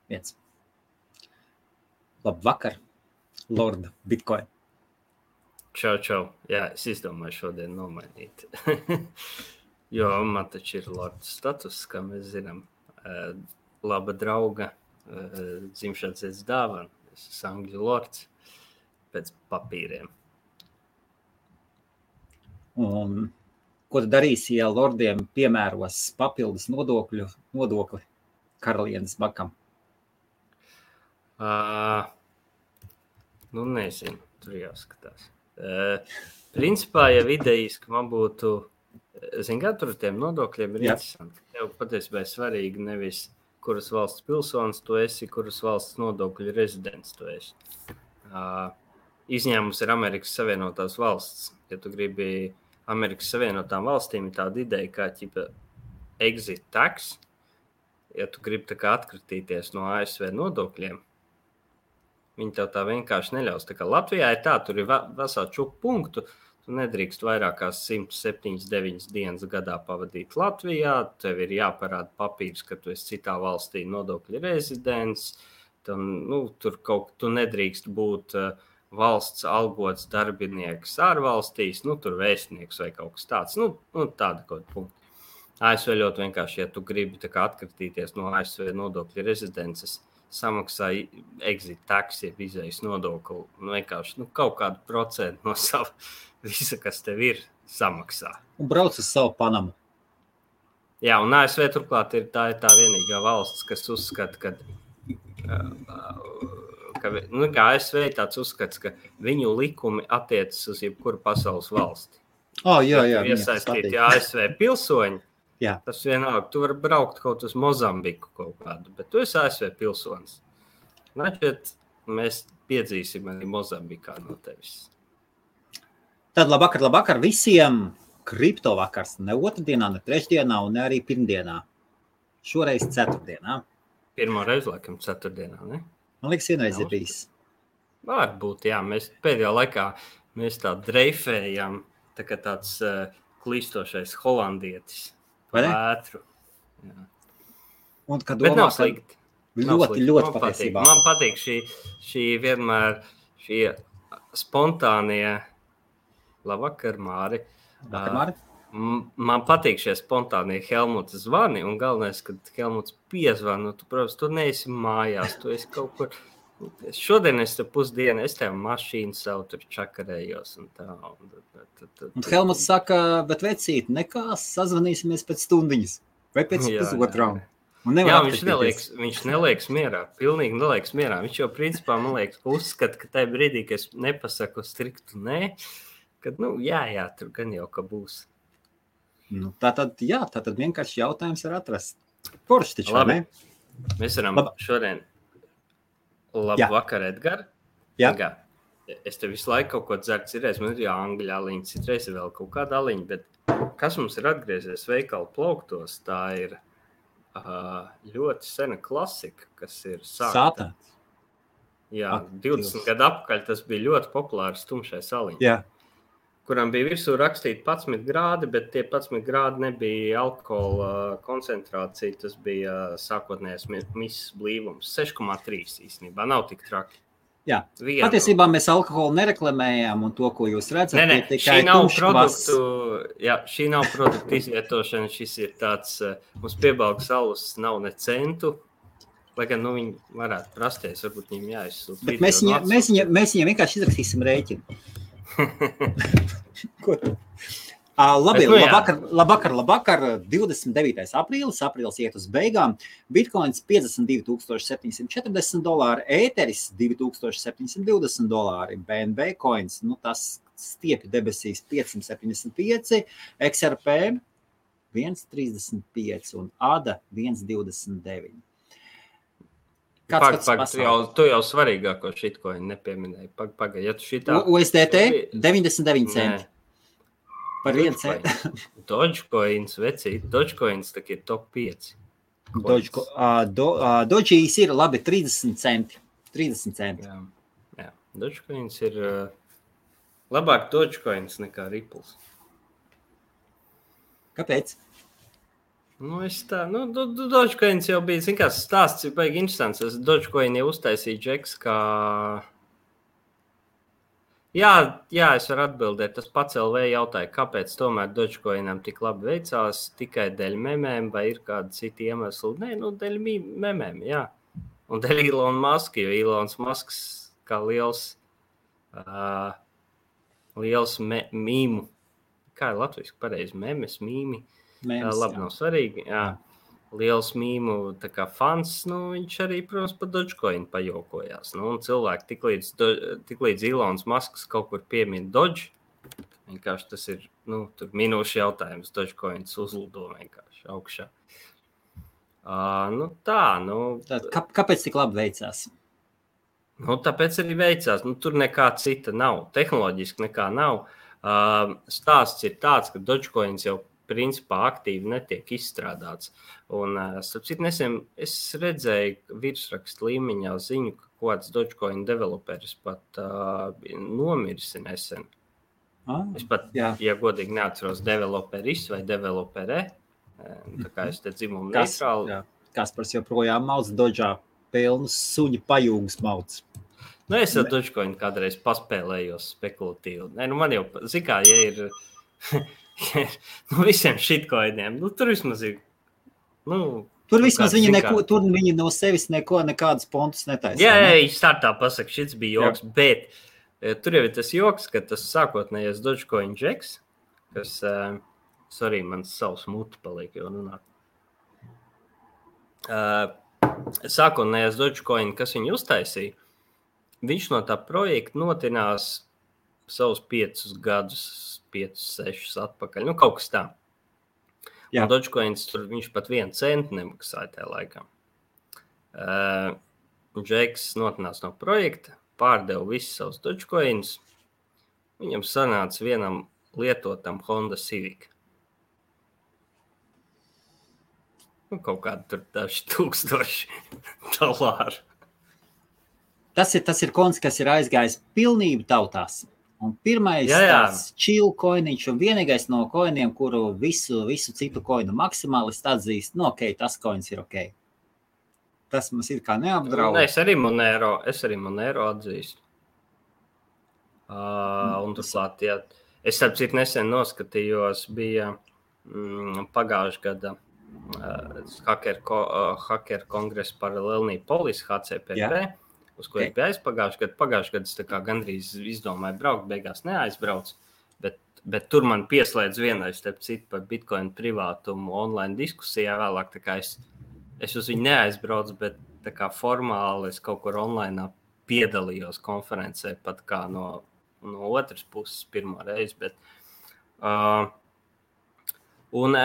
1. Labvakar, Lord Bitcoin. Čau. Jā, es izdomāju šodien nomainīt. Jo man taču ir Lord status, kā mēs zinām. Laba drauga dzimšanas dienas dāvana. Es esmu Angļu Lords pēc papīriem. Un ko tu darīsi, ja lordiem piemēros papildus nodokli karalienes bakam? Nezinu, tur jāskatās. Principā, ja vidējiski man būtu, kā tur ar tiem nodokļiem ir interesanti. Tev patiesībā ir svarīgi nevis, kuras valsts pilsonis tu esi, kuras valsts nodokļu rezidents tu esi. Izņēmums ir Amerikas Savienotās valsts. Ja tu gribi Amerikas Savienotām valstīm, ir tāda ideja kā exit tax. Ja tu gribi tā kā atkritīties no ASV nodokļiem, viņi tev tā vienkārši neļaus. Tā kā Latvijā ir tā, tur ir vesā čupu punktu. Tu nedrīkst vairāk kā 179 dienas gadā pavadīt Latvijā. Tev ir jāparāda papīrs, ka tu esi citā valstī nodokļu rezidents. Tu nedrīkst būt valsts algots darbinieks ārvalstīs, tur vēstnieks vai kaut kas tāds. Tāda kaut punkta. ASV ļoti vienkārši, ja tu gribi tā kā atkritīties no ASV nodokļu rezidences, samaksā exit tax, jeb izējas nodokli, vienkārši kaut kādu procentu no sava visa, kas tev ir, samaksā. Un brauc uz savu Panamu. Jā, un ASV turklāt ir tā vienīgā valsts, kas uzskata, ka ASV ir tāds uzskats, ka viņu likumi attiecas uz jebkuru pasaules valsti. Jā. Iesaistīti ASV pilsoņi. Jā. Tas vienalga, tu vari braukt kaut uz Mozambiku kaut kādu, bet tu esi ASV pilsonis. Mēs piedzīsim arī Mozambikā no tevis. Tad labvakar visiem. Kripto vakars ne otrdienā, ne trešdienā un ne arī pirmdienā. Šoreiz ceturtdienā. Pirmo reizi, laikam, ceturtdienā, ne? Man liekas, vienreiz ir bijis. Varbūt, jā. Mēs pēdējā laikā tā dreifējam, tā kā tāds klīstošais holandietis. Vētru. Un, kad bet domā, nav slikti. Ļoti patiesībā. Man patīk šī vienmēr šī spontānie. Labvakar, Māri. Labvakar, Māri. Man patīk šie spontānie Helmuta zvani, un galvenais, kad Helmuts piezvana, tu, protams, tu neesi mājās, tu esi kaut kur. Šodien es te pusdienu, es tev mašīnu savu tur čakarējos un tā. Un Helmuts saka, bet vecīt, nekās, sazvanīsimies pēc stundiņas vai pēc pusotrām. Jā, viņš neliekas mierā, pilnīgi neliekas mierā. Viņš jau principā, man liekas, uzskata, ka tajā brīdī, ka es nepasaku striktu nē, kad, jā, tur gan jau, ka būs. Tātad vienkārši jautājums ir atrast. Forši taču, labi. Mēs varam šodien. Labvakar, Edgar. Jā. Es te visu laiku kaut ko dzeru, citreiz man ir angļu aliņa, citreiz ir vēl kaut kāda aliņa, bet kas mums ir atgriezies veikalu plauktos, tā ir ļoti sena klasika, kas ir Sātāns. Jā, 20 gadu apakaļ tas bija ļoti populārs tumšais aliņa. Jā. Kuram bija virsū rakstīti 11 grādi, bet tie 11 grādi nebija alkohola koncentrācija, tas bija sākotnējais misas blīvums. 6,3 īstenībā, nav tik traki. Jā, patiesībā mēs alkoholu nereklamējām, un to, ko jūs redzat, ir tikai šī nav produktu izvietošana, šis ir tāds, mums piebalgs alus nav ne centu, lai gan, viņi varētu prasties, varbūt viņiem jāizsūt. Bet mēs viņiem vienkārši izrakstīsim rēķinu. Ko tu? Labi, labvakar, 29. aprīlis iet uz beigām, Bitcoins $52 740, Ēteris $2720, BNB coins, tas stiepja debesīs 575, XRP 1,35 un ADA 1,29. Tu jau svarīgāko shitcoin nepieminēji. Pagaid, ja tu šitā... USDT 99 centi. Par 1 centi. Dogecoins, vecīt. Dogecoins tā ir top 5. Dogeīs ir labi 30 centi. 30 centi. Jā. Dogecoins ir labāk Dogecoins nekā Ripples. Kāpēc? Dogecoins jau bija, zin kā, stāsts ir baigi interesants. Es Dogecoin jau uztaisīju džeks, kā... Jā, es varu atbildēt. Tas pats LV jautāja, kāpēc tomēr Dogecoinam tik labi veicās, tikai dēļ memēm vai ir kādi citi iemesli? Nē, dēļ memēm, jā. Un dēļ Elon Musk, jo Elons Musks kā liels mīmu. Kā ir latviski pareizi? Memes, mīmi. Labi, nav svarīgi. Jā. Liels mīmu tā kā fans, viņš arī, protams, par Dogecoin pajokojās. Un cilvēki tiklīdz Elons Musks kaut kur piemin Doge, vienkārši tas ir, tur minūšu jautājums, Dogecoins uzlido vienkārši augšā. Kāpēc tik labi veicās? Tāpēc arī veicās. Tur nekā cita nav. Tehnoloģiski nekā nav. Stāsts ir tāds, ka Dogecoins jau principā aktīvi netiek izstrādāts. Un, starp citu, nesen es redzēju virsrakstu līmeņā ziņu, ka kāds Dogecoin developeris pat nomirsi nesen. Es pat, ja godīgi neatceros, developeris vai developere, tā kā es te dzimumu neitrāli. Kaspars joprojām mauc Doge'ā pilnus suņu pajūgas mauc. Es ar Dogecoin kādreiz paspēlējos spekulatīvi. Man jau, zikā, ja ir... visiem shitcoiniem. Tur vismaz ir. Tur vismaz viņi no sevis nekādas pontus netaisa. Jā, startā pasaka, šits bija joks, bet tur jau ir tas joks, ka tas sākotnējais Dogecoin džeks, kas, sorry, man savs muti paliek jau runāt. Sākotnējais Dogecoin, kas viņu uztaisīja, viņš no tā projekta notinās savus 5 gadus, 5-6 atpakaļ. Kaut kas tā. Jā. Un Dogecoins tur viņš pat 1 centu nemaksāja tajā laikā. Džeks notinās no projekta, pārdeva visus savus Dogecoins. Viņam sanāca vienam lietotam Honda Civic. Kaut kādi tur daži $1000. Tas ir koins, kas ir aizgājis pilnību tautās. Un pirmais tāds chill koiniņš un vienīgais no koiniem, kuru visu citu koinu maksimālisti atzīst, tas koins ir ok. Tas mums ir kā neapdraud. Es arī Monero atzīstu. Un turklāt, es starp citu nesen noskatījos, bija pagājušā gada hacker kongresa paralēlnī polis HCPP. Uz ko es biju aizpagājuši gadu, es tā kā gandrīz izdomāju braukt, beigās neaizbraucu, bet tur man pieslēdz vienais, starp citu, par Bitcoin privātumu online diskusijā vēlāk, tā kā es uz viņu neaizbraucu, bet tā kā formāli es kaut kur online piedalījos konferencē, pat kā no otras puses pirmo reizi, bet un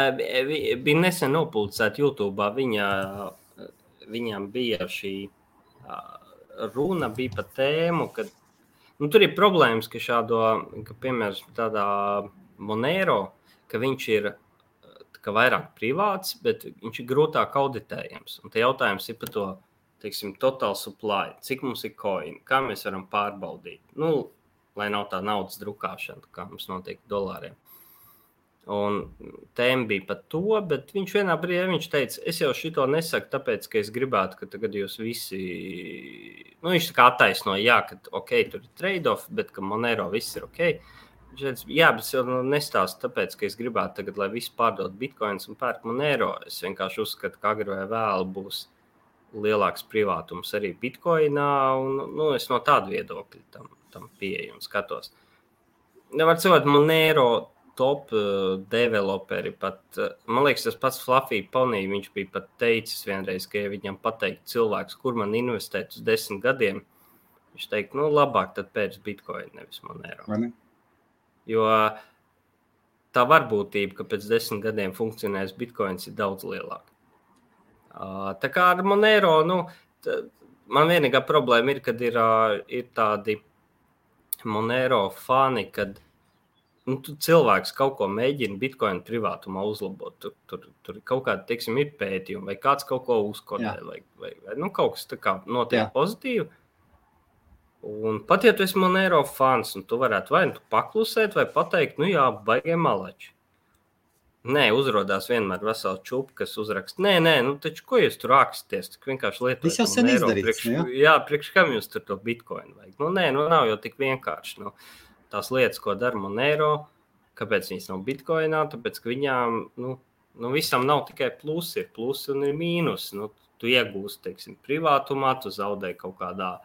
bija nesen nopublicēta YouTube'ā, viņam bija šī runa bija par tēmu, ka tur ir problēmas, ka piemēram tādā Monero, ka viņš ir vairāk privāts, bet viņš ir grūtāk auditējams. Un te jautājums ir par to, teiksim, total supply, cik mums ir coin, kā mēs varam pārbaudīt. Lai nav tā naudas drukāšana, kā mums notiek dolāriem. Un tēma bija par to, bet viņš vienā brīdī teica, es jau šito nesaku, tāpēc, ka es gribētu, ka tagad jūs visi, viņš tā kā attaisnoja, ka ok, tur ir trade-off, bet ka Monero viss ir ok. Viņš teica, bet es jau nestāstu tāpēc, ka es gribētu tagad, lai visi pārdod bitcoins un pērk Monero. Es vienkārši uzskatu, ka agri vai vēl būs lielāks privātums arī bitcoinā, un es no tāda viedokļa tam pieeju un skatos. Nevar cilvēt Monero top developeri pat, man liekas, tas pats Fluffy Pony, viņš bija pat teicis vienreiz, ka ja viņam pateikt cilvēks, kur man investēt uz 10 gadiem, viņš teikt, labāk tad pēc Bitcoin, nevis Monero. Vai ne? Jo tā varbūtība, ka pēc 10 gadiem funkcionēs Bitcoins ir daudz lielāka. Tā kā ar Monero, man vienīgā problēma ir, kad ir tādi Monero fani, kad cilvēks kaut ko mēģina Bitcoin privātumā uzlabot. Tur kaut kāda, teiksim, ir pētījumi, vai kāds kaut ko uzkodē, vai kaut kas tā kā notiek pozitīvi. Un pat ja tu esi Monero fans, un tu varētu vai tu paklusēt, vai pateikt, jā, baigie malači. Nē, uzrodās vienmēr vesela čupa, kas uzraksta. Nē, nu taču ko jūs tur raksties? Tik vienkārši lietojat. Tas jau sen izdarīts. Priekš kam jūs tur to bitcoin vajag? Nē, nav jau tik vienkārši. Tās lietas, ko dara Monero, kāpēc viņas nav bitcoinā? Tāpēc, ka viņām, visam nav tikai plusi, ir plusi un ir mīnus. Tu iegūsti, teiksim, privātumā, tu zaudē kaut kādā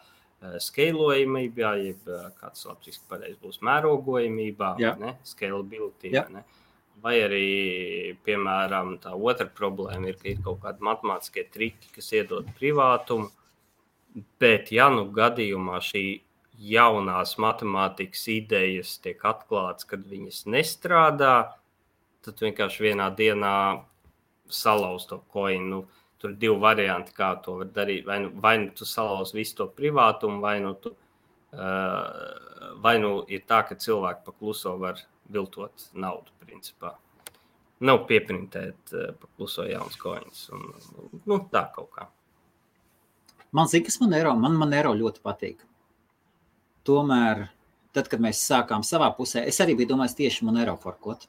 skalojamībā, jeb kāds latviešu pareizi būs mērogojamībā, ne? Scalability, ne? Vai arī, piemēram, tā otra problēma ir, ka ir kaut kādi matemātiskie triki, kas iedod privātumu, bet ja gadījumā šī jaunās matemātikas idejas tiek atklāts, kad viņas nestrādā, tad vienkārši vienā dienā salauz to koinu. Tur ir 2 varianti, kā to var darīt. Vai nu tu salauz visu to privātumu, vai ir tā, ka cilvēki pa kluso var viltot naudu, principā. Nav pieprintēt pa kluso jauns koins. Tā kaut kā. Man zina, kas Monero ļoti patīk. Tomēr, tad, kad mēs sākām savā pusē, es arī biju domājis tieši Monero forkot.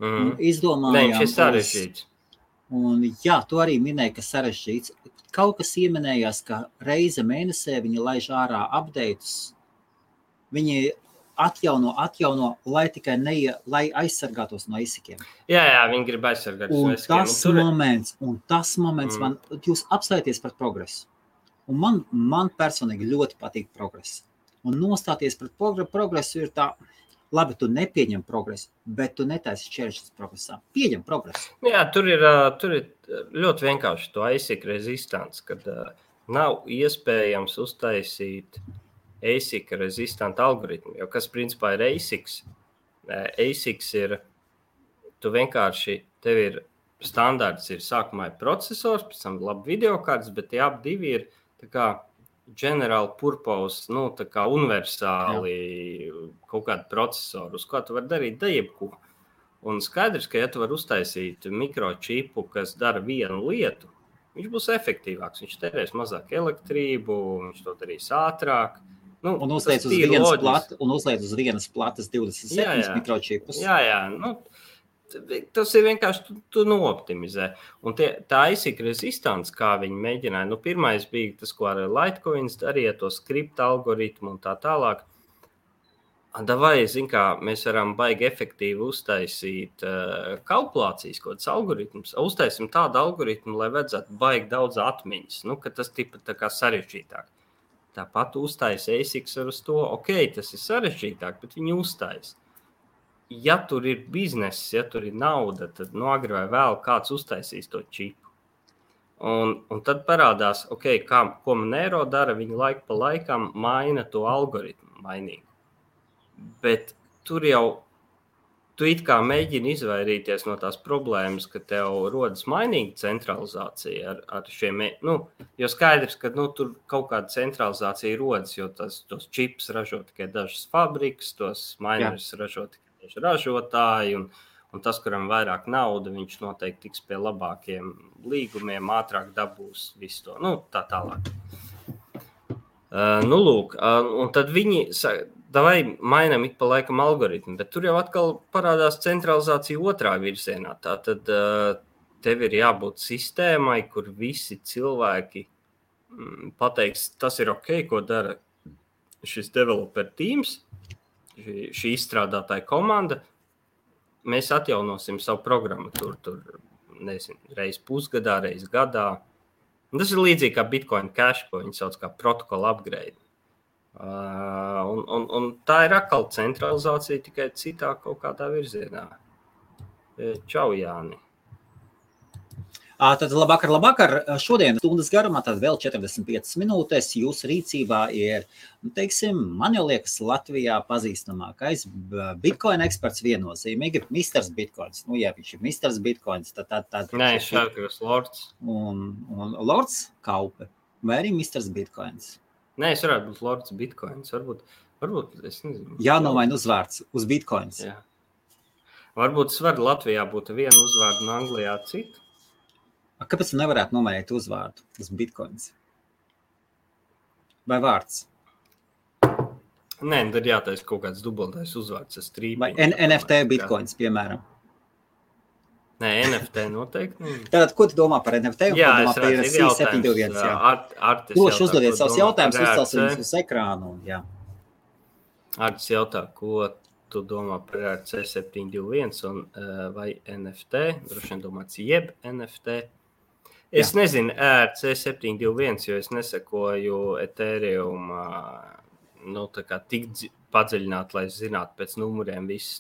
Izdomājām. Šis sarežģīts. Un jā, tu arī minēji, ka sarežģīts. Kaut kas ieminējās, ka reize mēnesē viņi laiž ārā updates. Viņi atjauno, lai tikai lai aizsargātos no ASIC-iem. Jā, viņi grib aizsargātos no ASIC-iem. Un tas moments man, jūs apstāties par progresu. Un man personīgi ļoti patīk progress. Un nostāties par progresu ir tā, labi, tu nepieņem progresu, bet tu netaisi šķēršļus progresā. Pieņem progresu. Jā, tur ir ļoti vienkārši to ASIC rezistants, kad nav iespējams uztaisīt ASIC rezistanta algoritmu, jo kas principā ir ASICs? ASICs ir, tu vienkārši, tev ir standarts, ir sākumā ir procesors, pēc tam labi videokārtas, bet tie ap divi ir tā kā general purpose, tā kā universāli kaut kādu procesoru, uz ko tu vari darīt jebko. Un skaidrs, ka ja tu vari uztaisīt mikročipu, kas dara vienu lietu, viņš būs efektīvāks, viņš terēs mazāk elektrību, viņš to darīs ātrāk. Un uzliec uz vienas platas 27 mikročipus. Jā. Tas ir vienkārši, tu nooptimizē. Un tā ASIC rezistants, kā viņi mēģināja, pirmais bija tas, ko ar Litecoins darīja, to skripta algoritmu un tā tālāk. Vai, mēs varam baigi efektīvi uztaisīt kalkulācijas kaut kāds algoritmus. Uztaisim tādu algoritmu, lai vajadzētu baigi daudz atmiņas, ka tas tipa tā kā sarežģītāk. Tāpat uztais ASICs ar uz to, tas ir sarežģītāk, bet viņi uztais. Ja tur ir bizness, ja tur ir nauda, tad agri vai vēl kāds uztaisīs to čipu. Un tad parādās, ko Monero dara, viņi laiku pa laikam maina to algoritmu mainīgi. Bet tur jau tu it kā mēģini izvairīties no tās problēmas, ka tev rodas mainīga centralizācija ar šiem, jo skaidrs, ka tur kaut kāda centralizācija rodas, jo tos čips ražo tikai dažas fabrikas, tos minerus ražo tikai daži ražotāji, un tas, kuram vairāk nauda, viņš noteikti tiks pie labākiem līgumiem, ātrāk dabūs visu to, tā tālāk. Lūk, un tad viņi vai mainām ik pa laikam algoritmu, bet tur jau atkal parādās centralizācija otrā virzienā. Tātad tev ir jābūt sistēmai, kur visi cilvēki pateiks, tas ir ko dara šis developer teams, šī izstrādātāja komanda. Mēs atjaunosim savu programmatūru tur, reiz pusgadā, reiz gadā. Un tas ir līdzīgi kā Bitcoin Cash, ko viņi sauc kā protokola upgrade. Un tā ir atkal centralizācija tikai citā kaut kādā virzienā. Čau, Jāni. Tad labvakar. Šodien stundas garumā, tad vēl 45 minūtes jūsu rīcībā ir, man jau liekas, Latvijā pazīstamākais Bitcoin eksperts viennozīmīgi, Misters Bitcoins. Ja viņš ir Misters Bitcoins, tad Nē, šāds Lords. Un Lords Kaupe, vai arī Misters Bitcoins? Nē, es varētu būt Lords Bitcoins. Varbūt, es nezinu. Jānomaina uzvārds uz Bitcoins. Jā. Varbūt es varu Latvijā būt vienu uzvārdu un Anglijā citu. Kāpēc tu nevarētu nomainīt uzvārdu uz Bitcoins? Vai vārds? Nē, tad jātais kaut kāds dubultais uzvārds. Vai NFT Bitcoins, piemēram? Nē, NFT noteikti. Tātad, ko tu domā par NFT un Jā, ko domā par C721? Droši uzdodiet savus jautājumus, uzcelsim viņus uz ekrānu. Jā. Artis jautā, ko tu domā par C721 un vai NFT? Droši vien domāts jeb NFT. Es nezinu C721, jo es nesekoju Ethereum tik padziļināt, lai zinātu pēc numuriem visus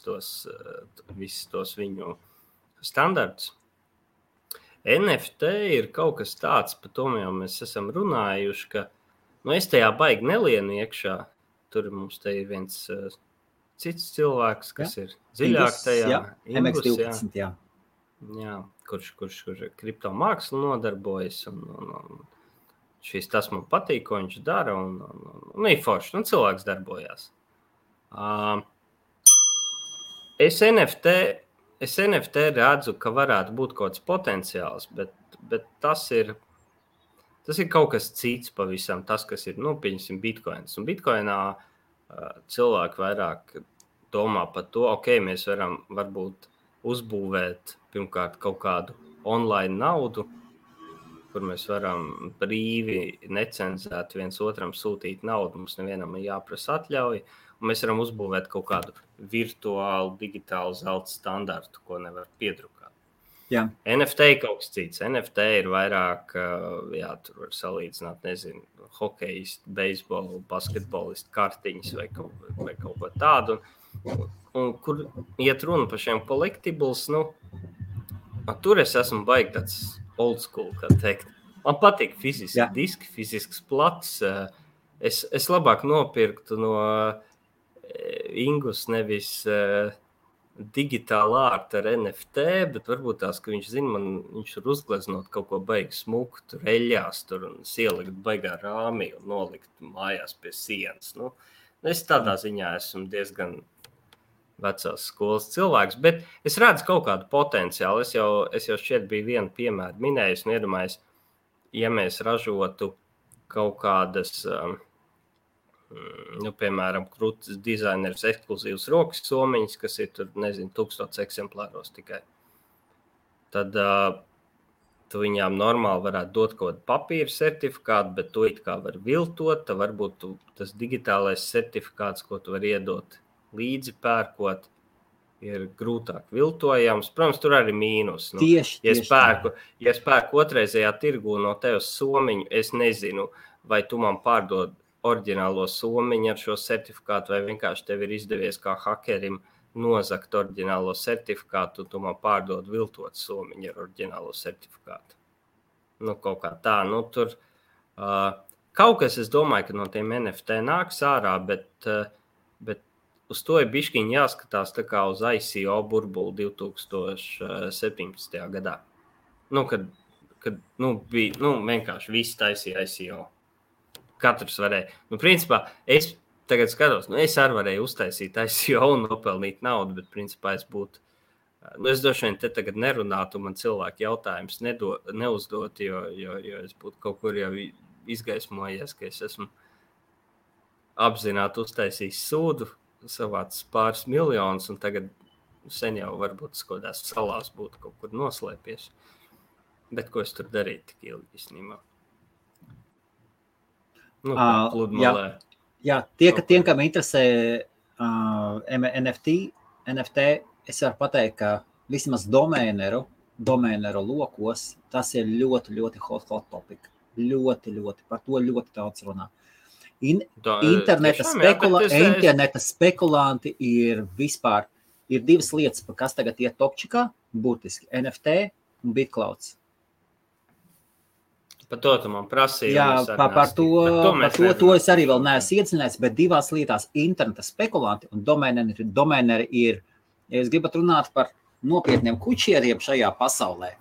tos viņu standartus. NFT ir kaut kas tāds, par to jau mēs esam runājuši, ka es tajā baigi nelienu iekšā. Tur mums te ir viens cits cilvēks, kas ir dziļāk tajā. MX12, jā. Jā, kurš kripto mākslu nodarbojas, un tas man patīk, ko viņš dara, un ir forši, cilvēks darbojās. Es NFT redzu, ka varētu būt kaut kāds potenciāls, bet tas ir kaut kas cits pavisam, tas, kas ir, pieņemsim, Bitcoins. Un Bitcoinā cilvēki vairāk domā par to, mēs varam varbūt uzbūvēt pirmkārt kaut kādu online naudu, kur mēs varam brīvi, necenzēti viens otram sūtīt naudu, mums nevienam ir jāprasa atļauja, un mēs varam uzbūvēt kaut kādu virtuālu, digitālu zelta standartu, ko nevar piedrukāt. Jā. NFT ir kaut kas cits. NFT ir vairāk, tur var salīdzināt, nezinu, hokejistu, beisbolu, basketbolistu kartiņas vai kaut ko tādu. Un kur iet runa par šiem collectibles, tur es esmu baigi tāds old school, kā teikt. Man patīk fiziski diski, fizisks plats. Es labāk nopirktu no Ingus nevis digitāli ārta ar NFT, bet varbūt tās, ka viņš zina, viņš var uzgleznot kaut ko baigi smuku, tur eļļās, tur un ielikt baigā rāmī un nolikt mājās pie sienas. Es tādā ziņā esmu diezgan vecās skolas cilvēks, bet es redzu kaut kādu potenciālu. Es jau šķiet biju vienu piemēru minējis un iedomājis, ja mēs ražotu kaut kādas, piemēram, krūtis dizaineris ekskluzīvas rokas somiņas, kas ir tur, 1000 eksemplāros tikai. Tad tu viņām normāli varētu dot kaut kādu papīra certifikātu, bet to it kā var viltot, tad varbūt tas digitālais certifikāts, ko tu var iedot līdzi pērkot, ir grūtāk viltojams. Protams, tur arī mīnus. Tieši ja es pērku otrreizējā tirgū no tevis somiņu, es nezinu, vai tu man pārdod oriģinālo somiņu ar šo certifikātu, vai vienkārši tev ir izdevies kā hakerim nozakt oriģinālo certifikātu, un tu man pārdod viltot somiņu ar oriģinālo certifikātu. Kaut kā tā. Tur kaut kas, es domāju, ka no tiem NFT nāks ārā, bet uz to ir bišķiņ jāskatās tā kā uz ICO burbuli 2017. gadā. Kad bija, vienkārši visi taisīja ICO. Katrs varēja. Principā, es tagad skatos, es arī varēju uztaisīt ICO un nopelnīt naudu, bet principā es būtu, es droši vien te tagad nerunātu, man cilvēki jautājums neuzdot, jo es būtu kaut kur jau izgaismojies, ka es esmu apzināti uztaisījis sūdu, savāds pāris miljonus, un tagad sen jau varbūt skodās salās būtu kaut kur noslēpies. Bet ko es tur darīju tik ilgi īstenībā? Pludmalē. Jā, tiem, kam interesē NFT, es varu pateikt, ka vismaz domēneru lokos, tas ir ļoti, ļoti hot topic. Ļoti, par to ļoti daudz runā. Interneta spekulanti ir vispār, ir divas lietas, kas tagad iet topčikā, būtiski NFT un BitClouds. Par to tu man prasīji. Jā, par to es arī vēl neesmu iedzinājies, bet divās lietās interneta spekulanti un domēneri ir, ja jūs gribat runāt par nopietniem kučieriem šajā pasaulē,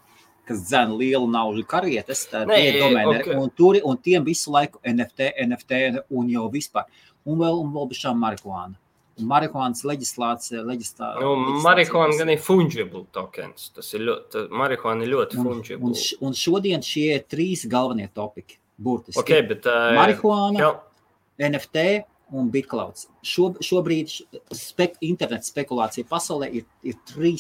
kas dzēna lielu naudu karietes, tad ir domēneri, okay. un tiem visu laiku NFT un jau vispār. Un vēl bišķām marihuāna. Marihuānas leģislācija. Marihuāna gan ir fungible tokens. Marihuāna ir ļoti fungible. Un šodien šie 3 galvenie topiki, burtiski. Okay, bet, marihuāna, NFT un BitClouds. Šobrīd internet spekulācija pasaulē ir 3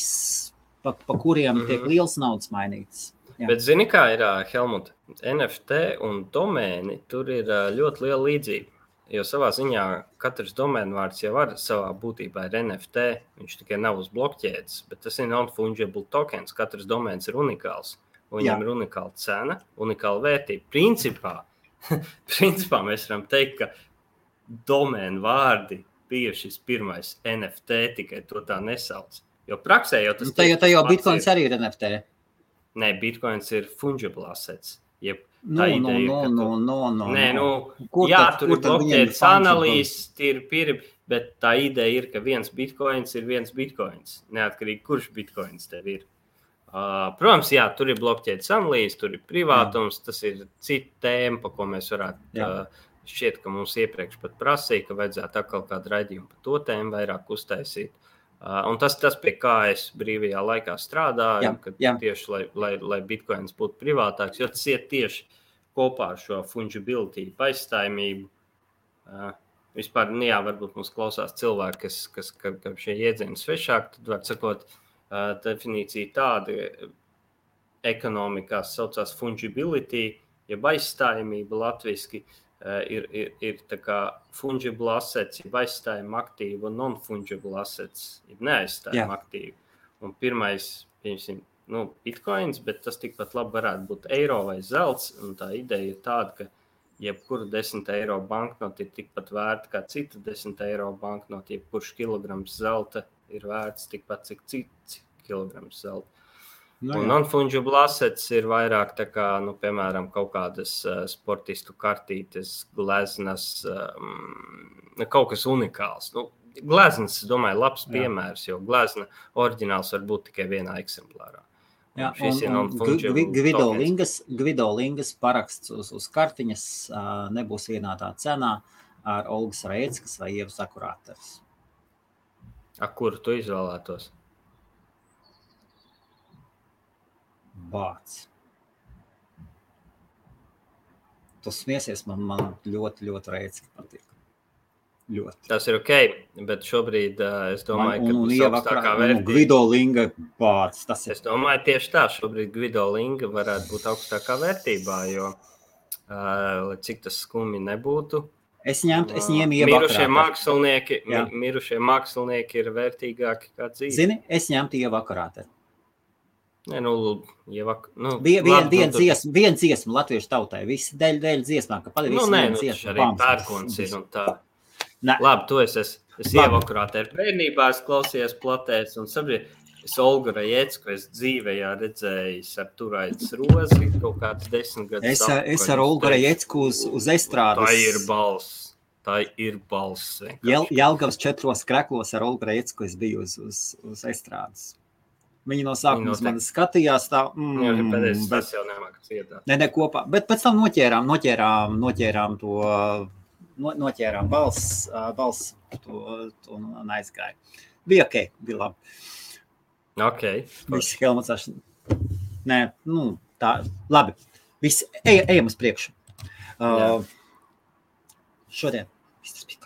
pa kuriem tiek liels naudas mainītas. Jā. Bet zini, kā ir, Helmut, NFT un domēni, tur ir ļoti liela līdzība. Jo savā ziņā katrs domēnvārds jau var savā būtībā ir NFT. Viņš tikai nav uz blokķēdes, bet tas ir non-fungible tokens. Katrs domēns ir unikāls. Viņam ir unikāla cena, unikāla vērtība. Principā mēs varam teikt, ka domēnu vārdi bija šis pirmais NFT, tikai to tā nesauc. Jo praksē jau tas jau Bitcoins arī ir NFT. Nē, Bitcoins ir fungible assets. Tur ir blokķēdes analīzes, bet tā ideja ir, ka viens Bitcoins ir viens Bitcoins. Neatkarīgi, kurš Bitcoins tev ir. Protams, tur ir blokķēdes analīzes, tur ir privātums, tas ir cita tēma, pa ko mēs varētu šķiet, ka mums iepriekš pat prasīja, ka vajadzētu atkal kādu raidījumu par to tēmu vairāk uztaisīt. Un tas pie kā es brīvajā laikā strādāju, tieši, lai Bitcoins būtu privātāks, jo tas iet tieši kopā ar šo fungibility, aizstājamību. Vispār, varbūt mums klausās cilvēki, kas šie jēdzieni svešāk, tad var sakot, definīcija tāda ekonomikās saucās fungibility, jeb aizstājamība latviski, ir tā kā fungible assets, jeb aizstājuma aktīva un non-fungible assets, jeb neaizstājuma aktīva. Un pirmais, Bitcoins, bet tas tikpat labi varētu būt eiro vai zelts, un tā ideja ir tāda, ka jebkura 10 eiro banknota ir tikpat vērta kā cita 10 eiro banknota, jebkurš kilograms zelta ir vērts tikpat, cik kilograms zelta. Un non-fungible assets ir vairāk tā kā, piemēram, kaut kādas sportistu kartītes, gleznas, kaut kas unikāls. Gleznas, es domāju, labs piemērs, jo glezna oriģināls var būt tikai vienā eksemplārā. Gvido Lingas paraksts uz kartiņas nebūs vienādā cenā ar Olgas Rēckas vai Ievas Akurāters. Kuru tu izvēlētos? Bāc. Tu smiesies, man ļoti, ļoti Rēcka patīk. Ļoti. Tas ir ok, bet šobrīd es domāju, ka būs augstākā vērtība. Gvido Linga bāc. Es domāju tieši tā, šobrīd Gvido Linga varētu būt augstākā vērtībā, jo, lai cik tas skumi nebūtu, es ņēmu Ievu Akurāteri. Mirušie mākslinieki ir vērtīgāki kā dzīve. Zini, es ņemtu Ievu Akurāteri. Viena dziesma latviešu tautai, visi dēļ dziesmā, ka padarīs viena dziesma. Arī pērkons ir un tā. Labi, tu es Ievu Akurāteri bērnībā, es klausījos platēs un sapratu, es Olgu Rajecku, es dzīvējā redzējis ar Turaidas Rozi kaut kāds 10 gadus. Es ar Olgu Rajecku uz estrādes. Tā ir balss. Jelgavas 4 kreklos ar Olgu Rajecku es biju uz estrādes. Viņi no sākuma man skatījās tā. Tas jau nemākas iedāt. Ne, kopā. Bet pēc tam noķērām to, noķērām balss to un aizgāja. Bija ok, bija labi. Ok. Visi Helmuts. Nē, tā, labi. Visi, ejam uz priekšu. Šodien viss tas bija.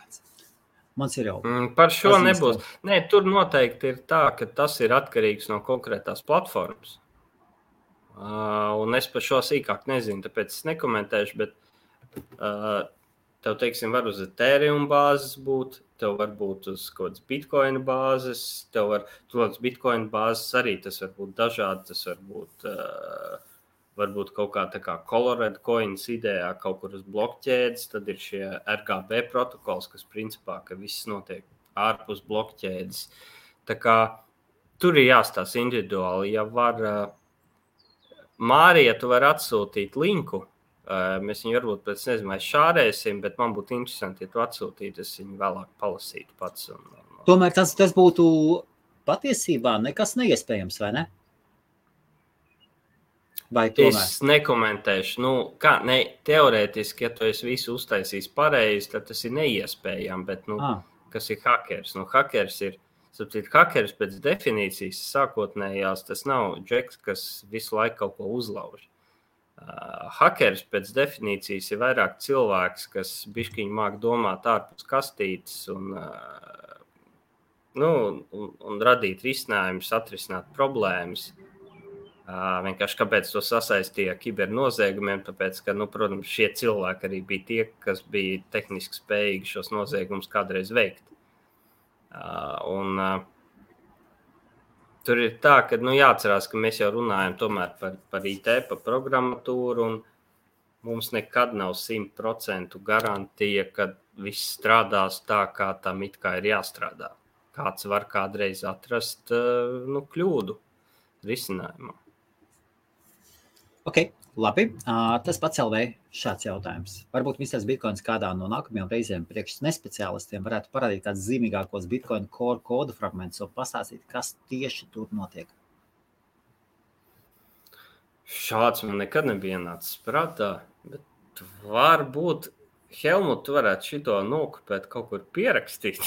Mans ir jau. Par šo nebūs. Nē, tur noteikti ir tā, ka tas ir atkarīgs no konkrētās platformas. Un es par šo sīkāk nezinu, tāpēc es nekomentēšu, bet tev, teiksim, var uz Ethereum bāzes būt, tev var būt uz kaut kādas Bitcoin bāzes, tev var, uz Bitcoin bāzes arī tas var būt dažādi, tas var būt varbūt kaut kā tā kā Colorado Coins idejā kaut kur uz blokķēdes, tad ir šie RGB protokols, kas principā, ka viss notiek ārpus blokķēdes. Tā kā tur ir jāstāsta individuāli. Ja var, Mārija, tu var atsūtīt linku, mēs viņu varbūt pēc nezinu, šārēsim, bet man būtu interesanti, ja tu atsūtītu, es viņu vēlāk palasītu pats. Tomēr tas būtu patiesībā nekas neiespējams, vai ne? Es nekomentēšu. Teorētiski, ja tu esi visu uztaisījis pareizi, tad tas ir neiespējami, bet kas ir hakers? Hakers ir, hakers pēc definīcijas sākotnējās, tas nav džeks, kas visu laiku kaut ko uzlauž. Hakers pēc definīcijas ir vairāk cilvēks, kas bišķiņi māk domāt ārpus kastītes un un radīt risinājumus, atrisināt problēmas. Vienkārši kāpēc to sasaistīja ar kibernoziegumiem, tāpēc, ka, protams, šie cilvēki arī bija tie, kas bija tehniski spējīgi šos noziegumus kādreiz veikt. Tur ir tā, ka jāatcerās, ka mēs jau runājam tomēr par IT, par programmatūru, un mums nekad nav 100% garantija, ka viss strādās tā, kā tam it kā ir jāstrādā. Kāds var kādreiz atrast kļūdu risinājumā. Ok, labi. Tas pats LV šāds jautājums. Varbūt Mr. Bitcoins kādā no nākamajām reizēm priekš nespeciālistiem varētu parādīt kāds zīmīgākos Bitcoin core kodu fragmentus un pastāstīt, kas tieši tur notiek. Šāds man nekad nebija ienācis prātā, bet varbūt Helmut, tu varētu šito nokopēt kaut kur pierakstīt.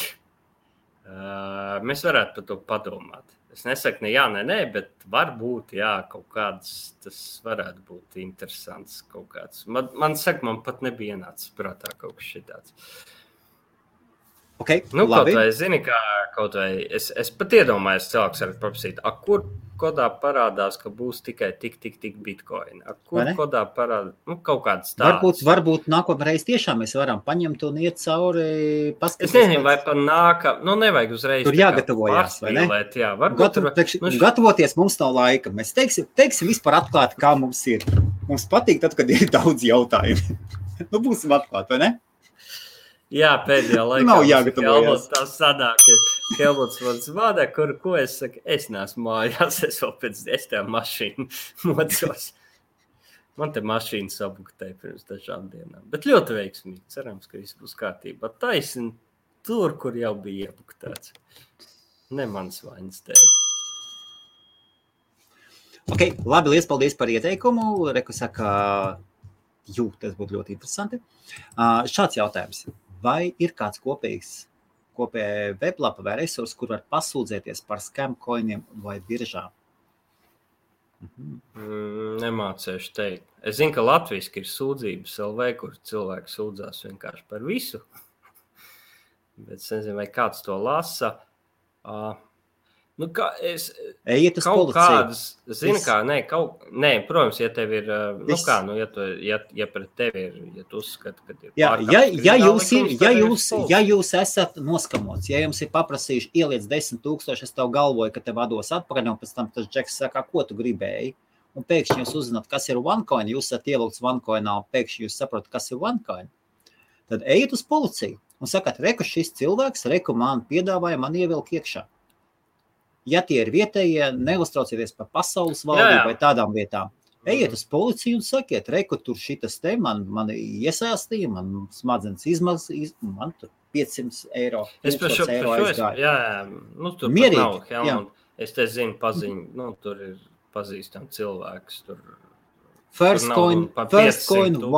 Mēs varētu par to padomāt. Es nesaku ne jā, ne nē, bet varbūt, jā, kaut kāds tas varētu būt interesants kaut kāds. Man pat nebija ienācis prātā kaut kas šitāds. Okay, kaut labi. vai, zini, es pat iedomājos, cilvēks var paprasīt, kur kodā parādās, ka būs tikai tik bitcoin. Kur kodā parādās, kaut kāds tāds. Varbūt nākamreiz tiešām mēs varam paņemt un iet cauri, paskatīties. Es nezinu, vai pa nevajag uzreiz. Tur jāgatavojās, vai ne? Jā, gatavoties mums nav laika. Mēs teiksim vispār atklāti, kā mums ir. Mums patīk tad, kad ir daudz jautājumu. Būsim atklāti, vai ne? Jā, pēdējā laikā nav jāgatavojas. Tā sanāk, ka Helmuts man zvana, ko es saku, es neesmu mājās, es vēl pēc 10 mašīnu mocos. Man te mašīna sabuktēja pirms dažām dienām, bet ļoti veiksmīgi, cerams, ka viss būs kārtībā. Taisni tur, kur jau bija iebuktēts. Ne mans vainas dēļ. Ok, labi, liels paldies par ieteikumu. Reku saka, tas būtu ļoti interesanti. Šāds jautājums. Vai ir kāds kopēja weblapa vai resursi, kur var pasūdzēties par scam coiniem vai biržām? Nemācēšu teikt. Es zinu, ka latviski ir sūdzības LV, kur cilvēki sūdzās vienkārši par visu. Bet es nezinu, vai kāds to lasa. Ejiet uz kaut policiju. Kādas, zini, nē, protams, ja tev ir, ja pret tevi ir, ja tu uzskati, ka ir ja jūs esat noskamots, ja jums ir paprasījuši ieliec 10,000, es tev galvoju, ka tev vados atpakaļ, un pēc tam tas džeks saka, ko tu gribēji, un pēkšņi jūs uzzināt, kas ir OneCoin, jūs esat ievilkts OneCoinā, un pēkšņi jūs saprotat, kas ir OneCoin, tad ejiet uz policiju un sakat, reku šis cilvēks, man piedāvāja, man ievilk iekšā. Ja tie ir vietējie, neuztraucieties par pasaules valdību vai tādām vietām. Ejiet uz policiju un sakiet, reku tur šitas te, man iesaistīja, man smadzenes man tur 500 eiro, 1000 eiro aizgāja. Tur mierīgi, pat nav, Helmut. Es te zinu paziņu, tur ir pazīstam cilvēks. First coin,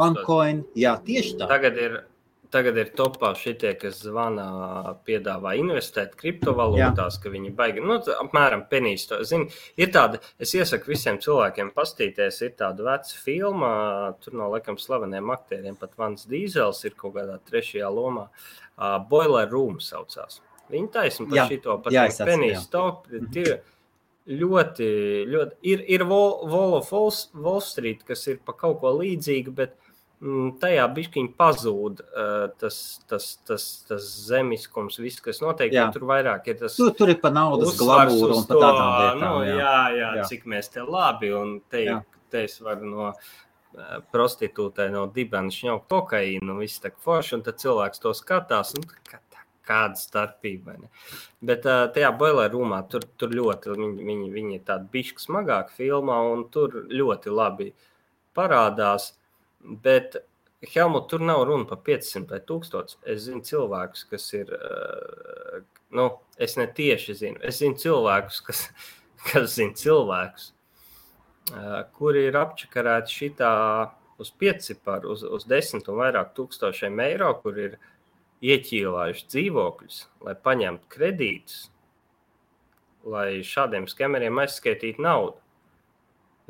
OneCoin, jā, tieši tā. Tagad ir topā šitie, kas zvana, piedāvā investēt kriptovalūtās, ka viņi baigi, apmēram penīs to. Zini, ir tāda, es iesaku visiem cilvēkiem pastīties, ir tāda veca filma, tur no laikam slaveniem aktieriem, pat Vans Dīzels ir kaut kādā 3. lomā, Boiler Room saucās. Viņi taisni par šito, pat penīs top, ir ļoti, ir Wall of Wall Street, kas ir pa kaut ko līdzīgu, bet tajā bišķiņ pazūd tas zemiskums, viss, kas notiek, tur vairāk ir tas tur ir pa naudas glamūru un pa tādām lietām. Jā, cik mēs te labi, un te es varu no prostitūtē, no dibena šņaukt kokaīnu, viss tak forši, un tad cilvēks to skatās, kāda starpība. Ne? Bet tajā Boiler Roomā tur ļoti, viņi ir tādi bišķi smagāk filmā, un tur ļoti labi parādās. Bet, Helmut, tur nav runa par 500 vai 1000. Es zinu cilvēkus, kas ir, es ne tieši zinu. Es zinu cilvēkus, kas zina cilvēkus, kuri ir apčakarēti šitā uz 5ciparu, uz 10 un vairāk tūkstošiem eiro, kur ir ieķīlājuši dzīvokļus, lai paņemtu kredītus, lai šādiem skemeriem aizskaitītu naudu.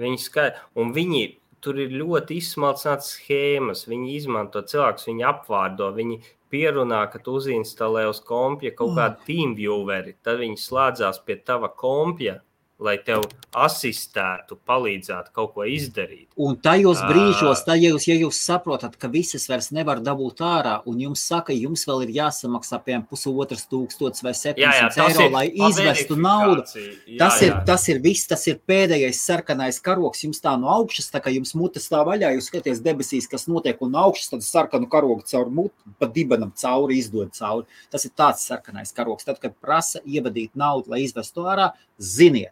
Un viņi tur ir ļoti izsmalcināts schēmas, viņi izmanto cilvēkus, viņi apvārdo, viņi pierunā, ka tu uzinstalē uz kompja kaut kādu TeamVieweri, tad viņi slēdzās pie tava kompja, lai tev asistētu, palīdzētu kaut ko izdarīt. Un tajos brīžos, ja jūs saprotat, ka visas vairs nevar dabūt ārā, un jums saka, jums vēl ir jāsamaksā piemēram 1500 vai 700 eiro, lai izvestu naudu. Tas ir viss, tas ir pēdējais sarkanais karogs, jums tā no augšas, tā kā jums mutes tā vaļā, jūs skaties debesīs, kas notiek, un no augšas tad sarkanu karogu caur mutu, pa dibenam cauri, izdod cauri. Tas ir tāds sarkanais karogs. Tad, kad prasa ievadīt naudu, lai izvestu ārā, ziniet,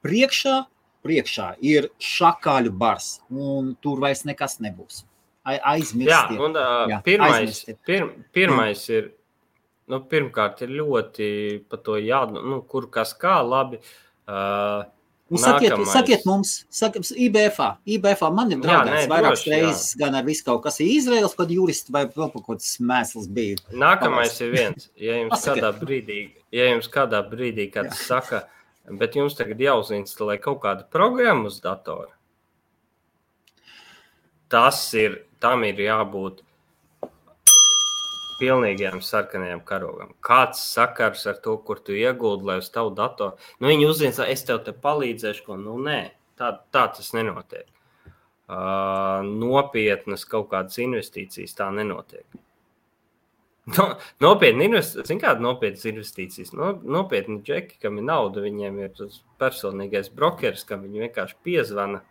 priekšā ir šakāļu bars, un tur vairs nekas nebūs. Aizmirstiet. Jā, un pirmais ir, pirmkārt ir ļoti par to kur kas kā labi. Sakiet mums, IBFā man ir draudēts vairākas reizes, gan ar visu kaut kas ir Izraels, kad juristi vai vēl kaut kāds mēsls bija. Nākamais ir viens, ja jums kādā brīdī kāds saka, bet jums tagad jāuzinstalē kaut kāda programma uz datora. Tam ir jābūt pilnīgajam sarkanajam karogam. Kāds sakars ar to, kur tu ieguldi, lai uz tavu datoru? Viņi uzinstalē, es tev te palīdzēšu, nē, tā tas nenotiek. Nopietnas kaut kādas investīcijas tā nenotiek. Nopietni investīcijas. Nopietni džeki, kam ir nauda, viņiem ir tas personīgais brokeris, kam viņi vienkārši piezvana.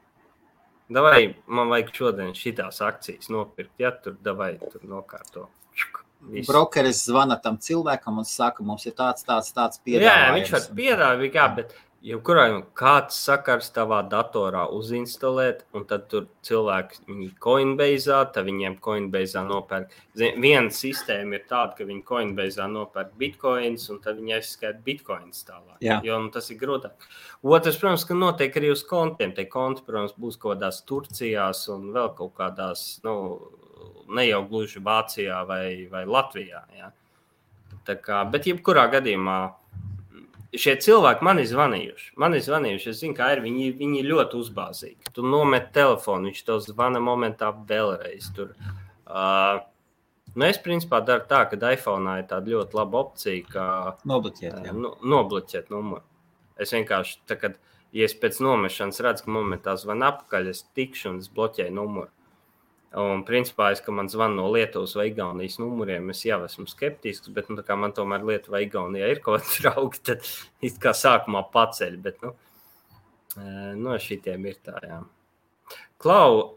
Davai, man vajag šodien šitās akcijas nopirkt, tur nokārto. Visu. Brokeris zvana tam cilvēkam un saka, mums ir tāds piedāvājums. Jā, viņš var piedāvāt, bet kāds sakars tavā datorā uzinstalēt, un tad tur cilvēki viņi Coinbase'ā, tad viņiem Coinbase'ā nopērk. Viena sistēma ir tāda, ka viņi Coinbase'ā nopērk bitcoins, un tad viņi aizskaita bitcoins tālāk. Jā. Jo tas ir grūtāk. Otrs, protams, ka notiek arī uz kontiem. Tie konti, protams, būs kaut kādās Turcijās un vēl kaut kādās, ne jau gluži Vācijā vai Latvijā. Jā. Bet jebkurā gadījumā šie cilvēki man ir zvanījuši. Es zinu, kā ir. Viņi ļoti uzbāzīgi. Tu nomet telefonu, viņš tev zvana momentā vēlreiz. Es principā daru tā, ka iPhone'ā ir tāda ļoti laba opcija, ka nobloķēt numuru. Es vienkārši, ja es pēc nomešanas redzu, ka momentā zvana apakaļ, es tikšu un es bloķēju numuru. Un principā, ka man zvana no Lietuvas vai Igaunijas numuriem, es jau esmu skeptisks, bet kā man tomēr Lietuva vai Igaunijā ir kaut kāds draugi, tad it kā sākumā paceļ, bet no šitiem ir tā, jā. Klau,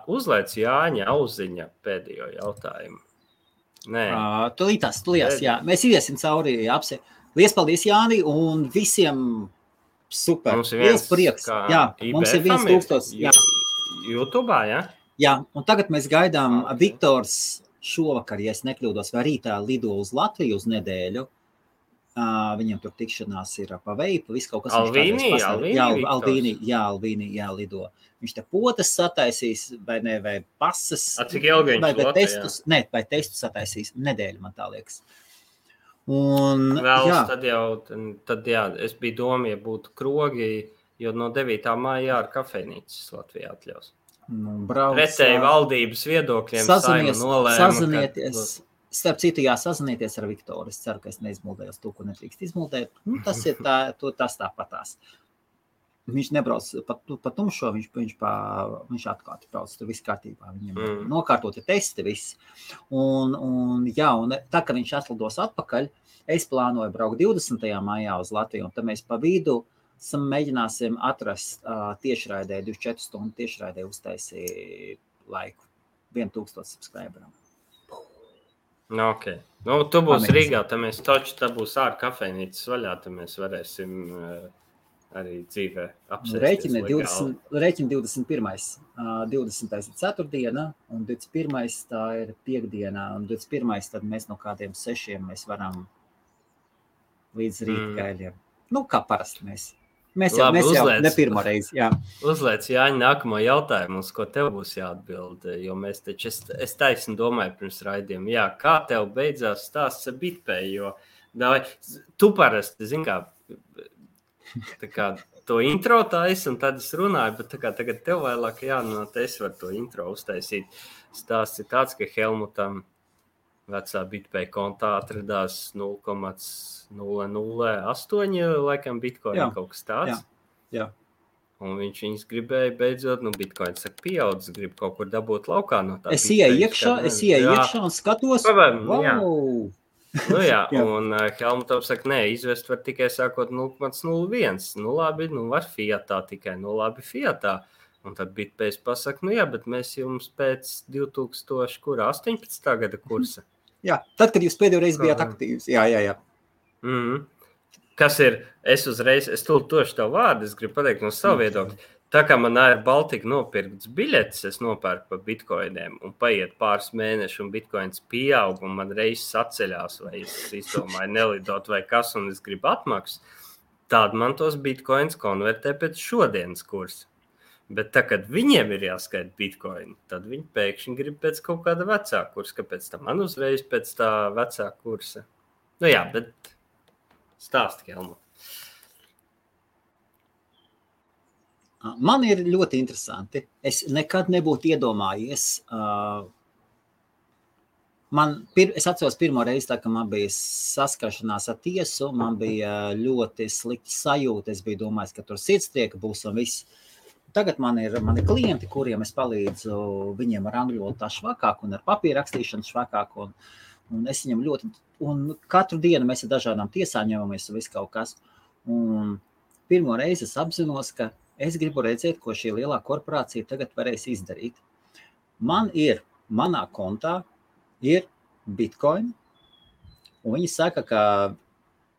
uzlaic Jāņa Auziņa pēdējo jautājumu. Nē. Tulītās, jā. Mēs iesim cauri apse. Lies paldies, Jāni, un visiem super. Liels prieks. Jā, mums ir 1000. Jā. YouTube'ā, jā? Jā, un tagad mēs gaidām Viktors šovakar, ja es nekļūdos, vai rītā lido uz Latviju uz nedēļu. Viņam tur tikšanās ir pa veipu, viss kaut kas. Alvīni lido. Viņš te potas sataisīs, vai pasas. Cik ilgi viņš testus, vai testus sataisīs nedēļu, man tā liekas. Un, tad es biju domāju, ja būtu krogi, jo no 9. māja ar kafejnīcas Latvijā atļaus. Pretēji valdības viedokļiem sazinieties. Starp citu, sazinieties ar Viktoru. Es ceru, ka es neizmuldējos to, ko netrīkst izmuldēt. Tas ir tas tāpatās. Viņš nebrauc pa tumšo, viņš atkārti brauc, tur viss kārtībā. Viņam nokārtoti testi, viss. Un tā, ka viņš atlidos atpakaļ, es plānoju braukt 20. maijā uz Latviju, un tad mēs pa vidu mēģināsim atrast tiešraidē, 24 stundu tiešraidē uztaisīt laiku 1000 subscriberam. Ok. Tu būsi Rīgā, tad mēs taču, tā būs ārā kafejnīcas vaļā, tad mēs varēsim arī dzīvē apsēsties. Rēķina 21. 20. ir ceturtdiena, un 21. tā ir piekdiena, un 21. tad mēs no kādiem 6 mēs varam līdz rīta gaļiem. Kā parasti mēs. Mēs jau ne pirmo reizi, jā. Uzliec, Jāņa, nākamo jautājumu, uz ko tev būs jāatbild, jo mēs taču, es taisni domāju pirms raidījuma, kā tev beidzās stāsts ar BitPay, jo tu parasti, zini kā to intro taisa, un tad es runāju, bet tā kā tagad tev vēlāk jānot, es varu to intro uztaisīt. Stāsts ir tāds, ka Helmutam vecā BitPay kontā atradās 0,008 laikam bitcoin kaut kas tāds. Jā. Un viņš viņus gribēja beidzot, bitcoin saka pieaudzis, grib kaut kur dabūt laukā no tā. Es ieeju iekšā un skatos. Wow! Un Helmutam saka, nē, izvest var tikai sākot 0,01. Labi, var fiatā tikai, labi fiatā. Un tad BitPay pasaka, bet mēs jums pēc 2018. gada kursa. Jā, tad, kad jūs pēdējo reizi bijāt aktīvs. Jā. Kas ir, es tošu tev vārdu, es gribu pateikt no savu viedokļu. Tā kā man Air Baltica nopirkts biļetes, es nopērku pa bitcoiniem un paiet pāris mēneši un bitcoins pieaug un man reizes atceļās vai es izdomāju nelidot vai kas un es gribu atmaksu, tad man tos bitcoins konvertē pēc šodienas kursa. Bet tā, kad viņiem ir jāskaita bitcoin, tad viņi pēkšņi grib pēc kaut kāda vecā kursa, kāpēc tā man uzreiz pēc tā vecā kursa. Bet stāsti, Helmut. Man ir ļoti interesanti. Es nekad nebūtu iedomājies. Es atceros pirmo reizi, tā, ka man bija saskaršanās ar tiesu, man bija ļoti slikta sajūta. Es biju domājis, ka tur sirdstrieka būs un viss. Tagad man ir klienti, kuriem es palīdzu viņiem ar angļu valodu tā švakāk un ar papīra rakstīšanu švakāk. Un es viņam ļoti, un katru dienu mēs ar dažādām tiesām ņemamies un viss kaut kas. Un pirmo reizi es apzinos, ka es gribu redzēt, ko šī lielā korporācija tagad varēs izdarīt. Manā kontā ir bitcoin, un viņi saka, ka